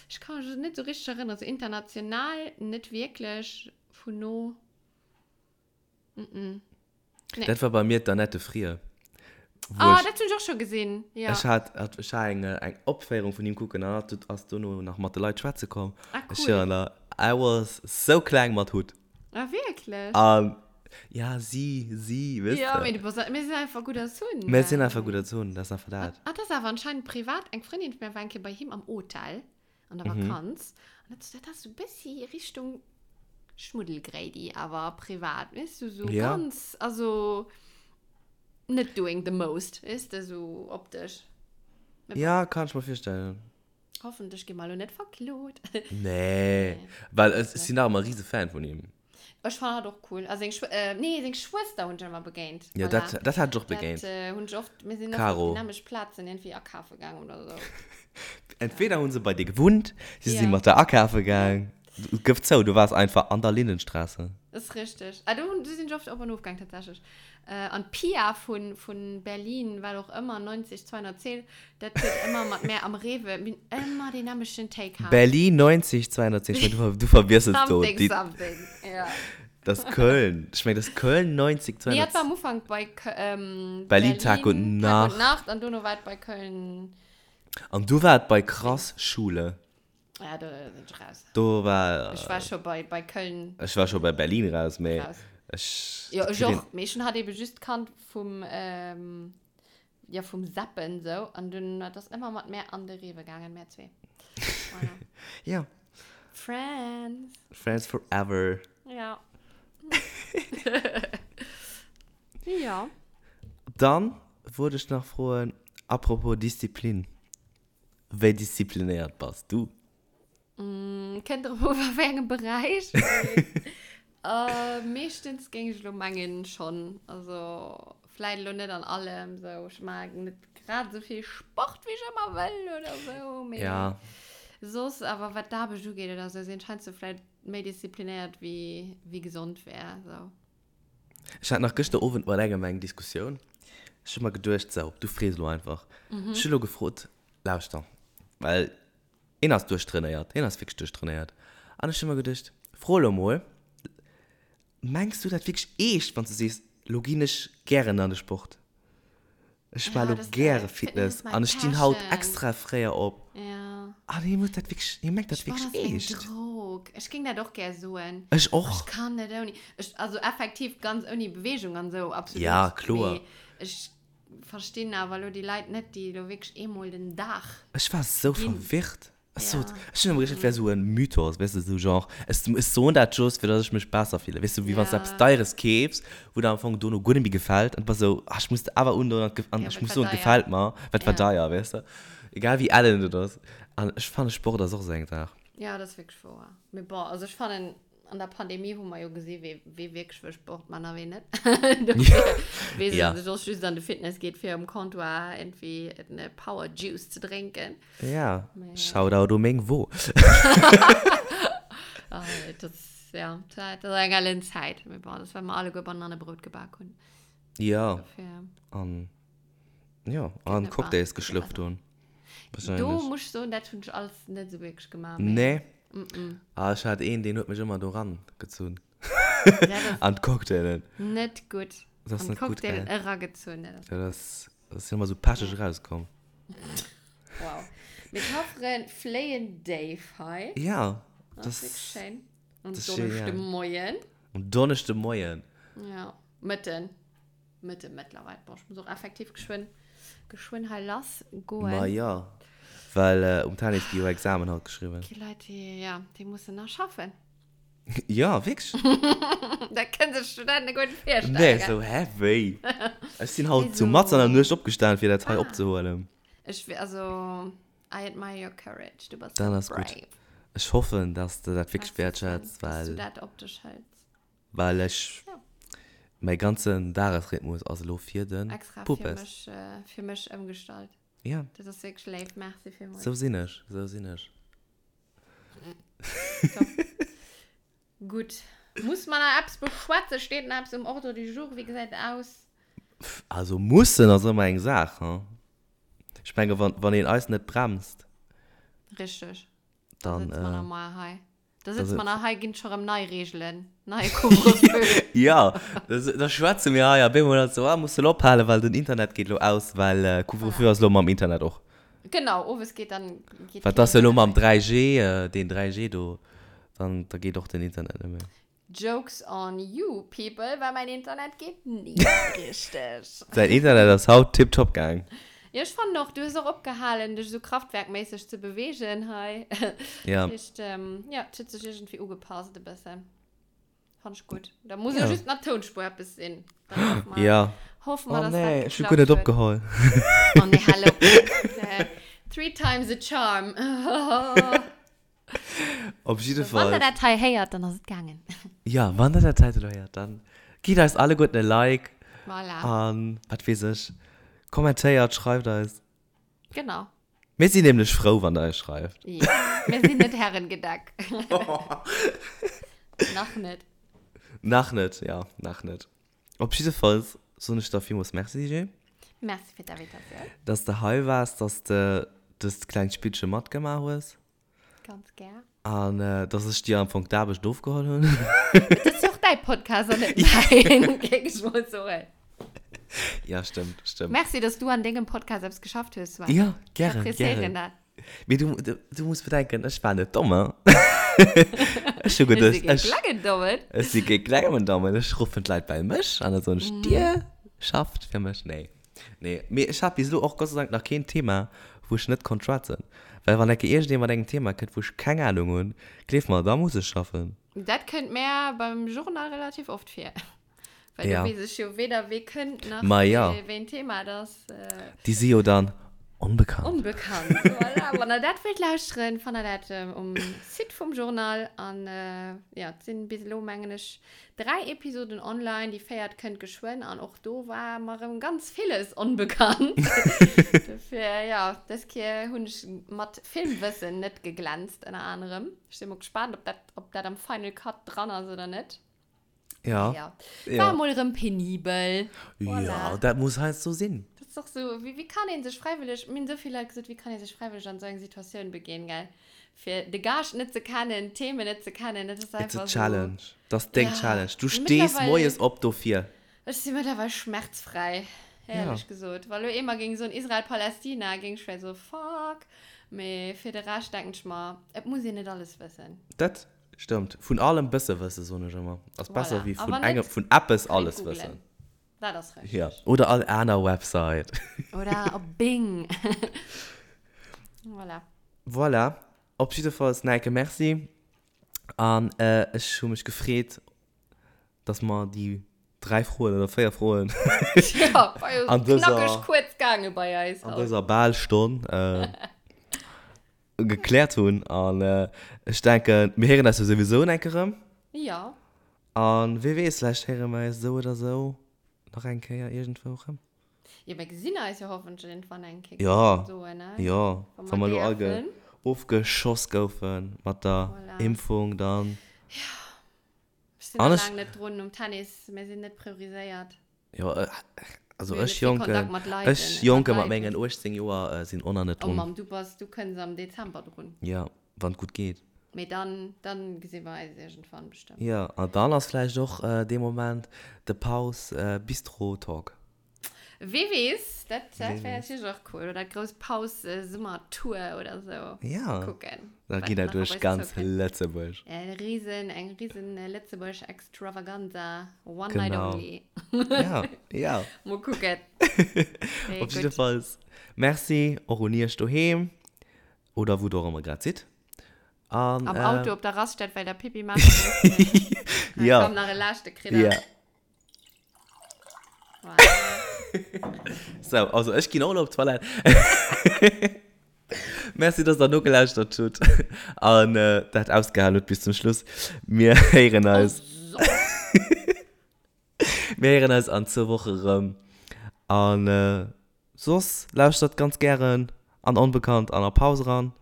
ich kann mich net so richtig erinnern, so international net wierklech vun no. Mm -mm. Nee. Dat war bei mir d'Annette Frier. Wou Ah, ech, dat hunn ech och scho gesinn. Ja. ech hat, hat, ech hat eng, eng Opféierung vun him kucken an hat ass dono nach mat de Leit schwätze komm. Ah, Ech cool. schwören der, I was so kleng mat Hutt. Ah, wierklech? An ja, si, si, weess Ja, de. mee du bass, mir sinn einfach gutt erzunn. Mir sinn einfach gutt erzunn, dat ass einfach dat. Ah, dat ass awer anscheinend privat. Eng Frëndin vun mir war eng Kéier bei him am Hotel an der Mhm. Vakanz. An dat, dat ass sou e bëssi Richtung Schmuddelgréidi, awer privat, weess du, sou Ja. ganz, also. Net doing the most, weess de, sou optesch. Mee bon. Ja, kann ech mer virstellen. Hoffentlech gi mer elo net verklot. Nee, well ech sinn nach ëmmer e rise Fan vun him. Ech fannen hatt och cool. A seng Schw-, äh, nee, seng Schwëster hunn ech ëmmer begéint. Ja, Voilà. dat, dat hat ech och begéint. Dat äh, hunn ech oft, mir sinn oft op Caro. déi nämlech Plazen iergendwéi akafe gaang oder sou. Entweder hunn se bei dir gewunnt, si si Ja. mat der akafe gaang. Gëff zou, du waars einfach an der Lindenstraße. Ass richteg. Ah, do hunn, do sinn ech oft op an of gaang tatsächlech. Äh, an d'Pia vun, vun Berlin, wat och ëmmer, 90 210, dat huet ëmmer mat mär am Rewe, mir hunn ëmmer deen nämlechten Take gehat. Berlin 90 210, ech mengen, du, du verwiesselst do. Something, Déi, something, ja. das ist Köln. Ech mengen, das ist Köln 90 Nee, dat war 210. am Ufank bei Kö-, ähm, Berlin Tag und Berlin Tag und Nacht. Nacht an dono war et bei Köln. An du war et bei Krass Schule. Ja, do sinn ech raus. Do war. Ech war scho bei, bei Köln. Ech war scho bei Berlin raus, mee Raus. ech. Jo, ech och. Mee ech hunn hatt ebe just kannt vum, ähm, ja, vum Zappen sou. An dunn, dat ass ëmmer mat mär an de Rewe gaangen, mär zwee. Voilà. Ja. Friends. Friends forever. Ja. Ja. Dann wollt ech nach froen, apropos Disziplin. Wéi disziplinéiert bass du? Kënnt drop u a wéi engem Beräich. Meeschtens géing ech elo mengen schonn. Also vläit elo net an allem sou. Ech maachen net grad esou vill Sport wéi ech ëmmer wëll oder sou, mee Ja. soss awer wat d'Aarbecht ugeet oder sou sinn ech heiansdo vläit méi disziplinéiert wéi wéi gesond wär sou. Ech hat nach gëschter Owend mat engem eng Diskussioun. Ech hu mer geduecht, sou, du frees elo einfach. Ech hu elo gefrot, lauschter, well een ass duerchtrainéiert, hien ass wierklech duerchtrainéiert. An ech hu mer geduecht, fro elo mol, mengs du dat wierklech eescht, wann s du sees, elo ginn ech gären an de Sport? Ech war lo gäre Fitness an ech stinn haut extra fréier op. Ja. An hie muss dat wierklech, hie mengt dat wierklech eescht. Ech Drog. Ech géing dat och gär soen. Ech och. Ech kann net ouni. Ech, also effektiv ganz ouni Beweegung an esou, absolut. Ja, kloer. Mee ech verstinn awer elo déi Leit net, déi elo wierklech eemol den Dag. Ech war sou verwirrt. Ech sot, ech hunn ëmmer geduecht, et wär esou e Mythos, weess de, esou genre, ech, ech soen dat just, fir datt ech mech besser fillen, weess de, wéi wann s de eppes Deieres keefs, wou der am Fong dono guer net méi gefält, an du bass esou, ah, ech muss et awer undoen an et, an ech muss soen, et gefält mer, well et war deier, weess de, egal wéi ellen et ass. An ech fannen, Sport ass och esou eng Saach. Ja, dat ass wierklech wouer. Mee bon, also ech fannen, An der Pandemie hu mer jo gesi wee wee wierklech wëll Sport man a wee net. Dofir wee Ja. sech och just an de Fitness geet fir um Comptoir irgendwie en Power Juice ze drénken. Ja, Mee- Shoutout u meng Wo. Ah, dat ass, ja, dat ass eng ellen Zäit. Mee bon, dat ass well mer alleguer Banannebrot gebak hunn. Ja, Dofir. an ja, an net Cocktails wahr. geschlürft hunn. Do muss ech soen, dat hunn ech alles net esou wierklech gemaach. Mee. Nee. Mm -mm. Ah, ech hat een, deen huet mech ëmmer do ran gezunn. Dat An d'Cocktailen. Net gutt. Dat ass net gutt, gell? An d'Cocktailen eragezunn. Dat ass, dat ass, dat ass ëmmer sou pecheg erauskomm. Wow. Mee d'Hafferen fléien déif hei. Ja. Dat ass wierklech schéin. Um Donneschdemoien. Um Donneschdemoien. Ja. Mëtten. Mëtte mëttlerweil. Bon, ech muss och effektiv geschwënn, geschwënn hei lass goen. Ma jo, well um Tennis gi jo Examen haut geschriwwen. Gi Leit, déi, ja, déi mussen nach schaffen. Ja, wierklech. Dat kënnen sech d'Studenten guer net virstellen. Nee, sou, hä, wéi? Ech sinn haut zu matzen an der Nuecht opgestanen, fir dat hei opzehuelen. Ech, also, I admire your courage. Du bass Dann ass gutt. brave. Ech hoffen, dass de dat wierklech wäertschätz, Dass du well. dat op dech hëls. Well ech, Ja. mäi ganzen Dagesrhythmus ass elo fir de Extra fir Puppes. mech, äh, fir mech ëmgestallt. Ja. Dat ass wierklech léif. Merci villmools. Sou sinn ech, sou sinn ech. Top. Gutt. Muss mer nach eppes beschwätzen? Steet nach eppes um Ordre du jour? Wéi gesäit et aus? Also mussen ass ëmmer eng Saach, hein. Ech menge wann, wann een eis net bremst. Richteg. Dann, Da sëtze mer äh, nach mol hei. Da sëtze mer nach hei, ginn et scho rëm nei Reegelen, neie Couvre-feu. Jo, da schwätze mir hei a bemol ass esou, ah, muss elo ophalen, well den Internet geet elo aus, well Couvre-feu ass elo mam Internet och. Genau, owes geet dann. Well et ass jo elo mam 3G, deen 3G do, dann da geet och den Internet net méi. Jokes on you people, well mäin Internet geet ni richteg. Säin Internet ass haut tiptop gaang. Jo, ech fannen och, du hues och opgehalen, dech esou kraftwerkméisseg ze beweegen hei. Ja. Dat heescht, jo, et huet sech iergendwéi ugepasst e bëssen. Fand ich gut. Da muss ja just nach Tonspur etwas sinn. Dann hoffen wir, ja. hoffen wir, oh, dass nee, dat ich hab gut net opgeholl. Oh nee, hallo. Three times a charm. Op jidde Fall. Wann der dat hei héiert, dann ass et gaangen. Ja, wann der dat hei héiert, dann gitt eis alleguerten e Like. Voilà. An, wat weess ech, kommentéiert, schreift eis. Genau. Mir sinn nämlech frou, wann der eis schreift. Ja, mir sinn net Herrengedeck. Nach net. Nach net, ja, nach net. Op jiddefalls soen ech der villmools Merci, DJ. Merci fir d'Invitatioun. Dass de hei waars, dass de dëst klengt Spillche matgemaach hues. Ganz gär. An dass ech dir am Fong d'Aarbecht ofgeholl hunn. Et ass jo och däi Podcast an net mäin, géing ech mol soen. Ja, stëmmt, stëmmt. Merci, dass du an dengem Podcast eppes geschafft hues, Sven. Ja, gären, Ech appréciéieren gären. dat. Mee du, du, du muss bedenken, ech war net domm, hein. Ech hu geduecht, Ech si kee ech. klengen Dommen. Ech si kee klengen Dommen. Ech ruffen d'Leit bei mech an da soen ech, Dir schafft fir mech. Nee. Nee, mee ech hat bis elo och Gott sei Dank nach keen Thema, wou ech net konnt schwätzen. Well wann enke iergendee mat engem Thema kënnt, wou ech keng Ahnung hunn, gleef mer, da muss ech schaffen. Dat kënnt mär beim Journal relativ oft vir. Well Ja. do weess ech jo weder wee kënnt nach Ma ja. wéi en Thema et ass. Déi si jo dann onbekannt. Onbekannt, voilà. Wann der dat wëllt lauschteren, fannt der dat um Site vum Journal. An jo, et sinn bis elo, mengen ech, 3 Episoden online, déi véiert kënnt geschwënn an och do war mer erëm ganz villes onbekannt. Dofir, jo, dës Kéier hunn ech mat Filmwëssen net geglänzt, ënner anerem. Ech si mol gespaant, ob dat, ob dat am Final Cut dran ass oder net. Ja. Ja. War mol erëm penibel. Voilà. Ja, dat muss heiansdo sinn. Dat ass och sou, wéi, wéi kann ee sech fräiwëlleg, mir hunn esou vill Leit gesot, wéi kann ee sech fräiwëlleg an esou eng Situatioun beginn, gell? Fir de Gaascht net ze kennen, d'Themen net ze kennen, dat ass It's a einfach esou. challenge. Dat ass deng Ja. Challenge. Du stees Mittlerweil- moies op dofir. Ech si mëttlerweil schmerzfräi, éierlech Ja. gesot. Wa lo eemol géing soen Israel-Palästina, géing ech vläicht soe fuck. Mee fir de Rescht denken ech mer, et muss een net alles wëssen. Dat stëmmt. Vun allem bësse wësse, soen ech ëmmer, ass besser Voilà. wéi A vun wann net, engem, vun eppes könnt alles googlen. wëssen. Dat ass richtig. Ja. Oder all aner Website. Oder op Bing. Voilà. Voilà. Op jiddefalls Nike Merci. An ech hu mech gefreet, dass mer déi 3 Froen oder 4 Froen Ja, war jo an dëser, knackeg kuerz gaange bei eis an haut. dëser bal Stonn gekläert hunn. An ech denken, mir héieren eis jo souwisou en enke rëm. Ja. An wee weess, vläicht héiere mer eis esou oder esou nach eng Kéier iergendwou rëm. Jo, mir gesinn eis jo hoffentlech iergendwann eng Kéier, Ja, soen, ne? jo, Wa wa mer mer elo all ge däerfen. ofgeschoss goufe mat der Voilà. Impfung, dann. Ja, ech sinn An nach ech. laang net drun um Tennis, mir sinn net prioriséiert. Jo, also Mir hunn ech net vill Jonken, Kontakt mat Leiten, ech mat Jonke mat Leiten. mengen 18 Joer sinn och nach net Oh drun. Mamm, du bass, du kënns am Dezember drun. Ja, wann et gutt geet. Mee dann, dann gesi mer eis iergendwann bestëmmt. Jo, an dann ass vläicht och dee Moment de Paus Bistro Talk. Wee weess, dat, dat Wee wär weess. natierlech och cool. Oder d'grouss Paus Summertour oder sou. Ja, Kucken, da wat geet dat nach op duerch eis ganz zoukënnt. Lëtzebuerg. E riesen, eng riesen Lëtzebuerg Extravaganza, one night Genau. only. Ja, ja. Mol kucken. Mee Op gutt. jiddefalls, Merci och un iech doheem oder wou der och ëmmer grad sidd. An, Am äh, Auto op der Raststätt, well der Pipi maache musst. Ja. Komm, nach e leschte kritt der. Ja. Voilà. So, also ech ginn och elo op d'Toilette. Merci, dass der nogelauschtert hutt an äh, dat ausgehalen hutt bis zum Schluss. Mir héieren eis. Oh, so. Mir héieren eis an zwou Woche rëm. An äh, Soss lauschtert ganz gären an Onbekannt an a Paus eran.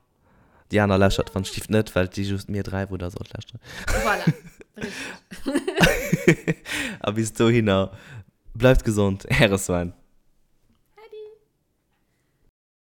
Déi aner lauschtert wann Stift net, well et si just mir 3 wou der sollt lauschteren. Voilà, richteg. A bis dohinner, bleift gesond, äre Sven.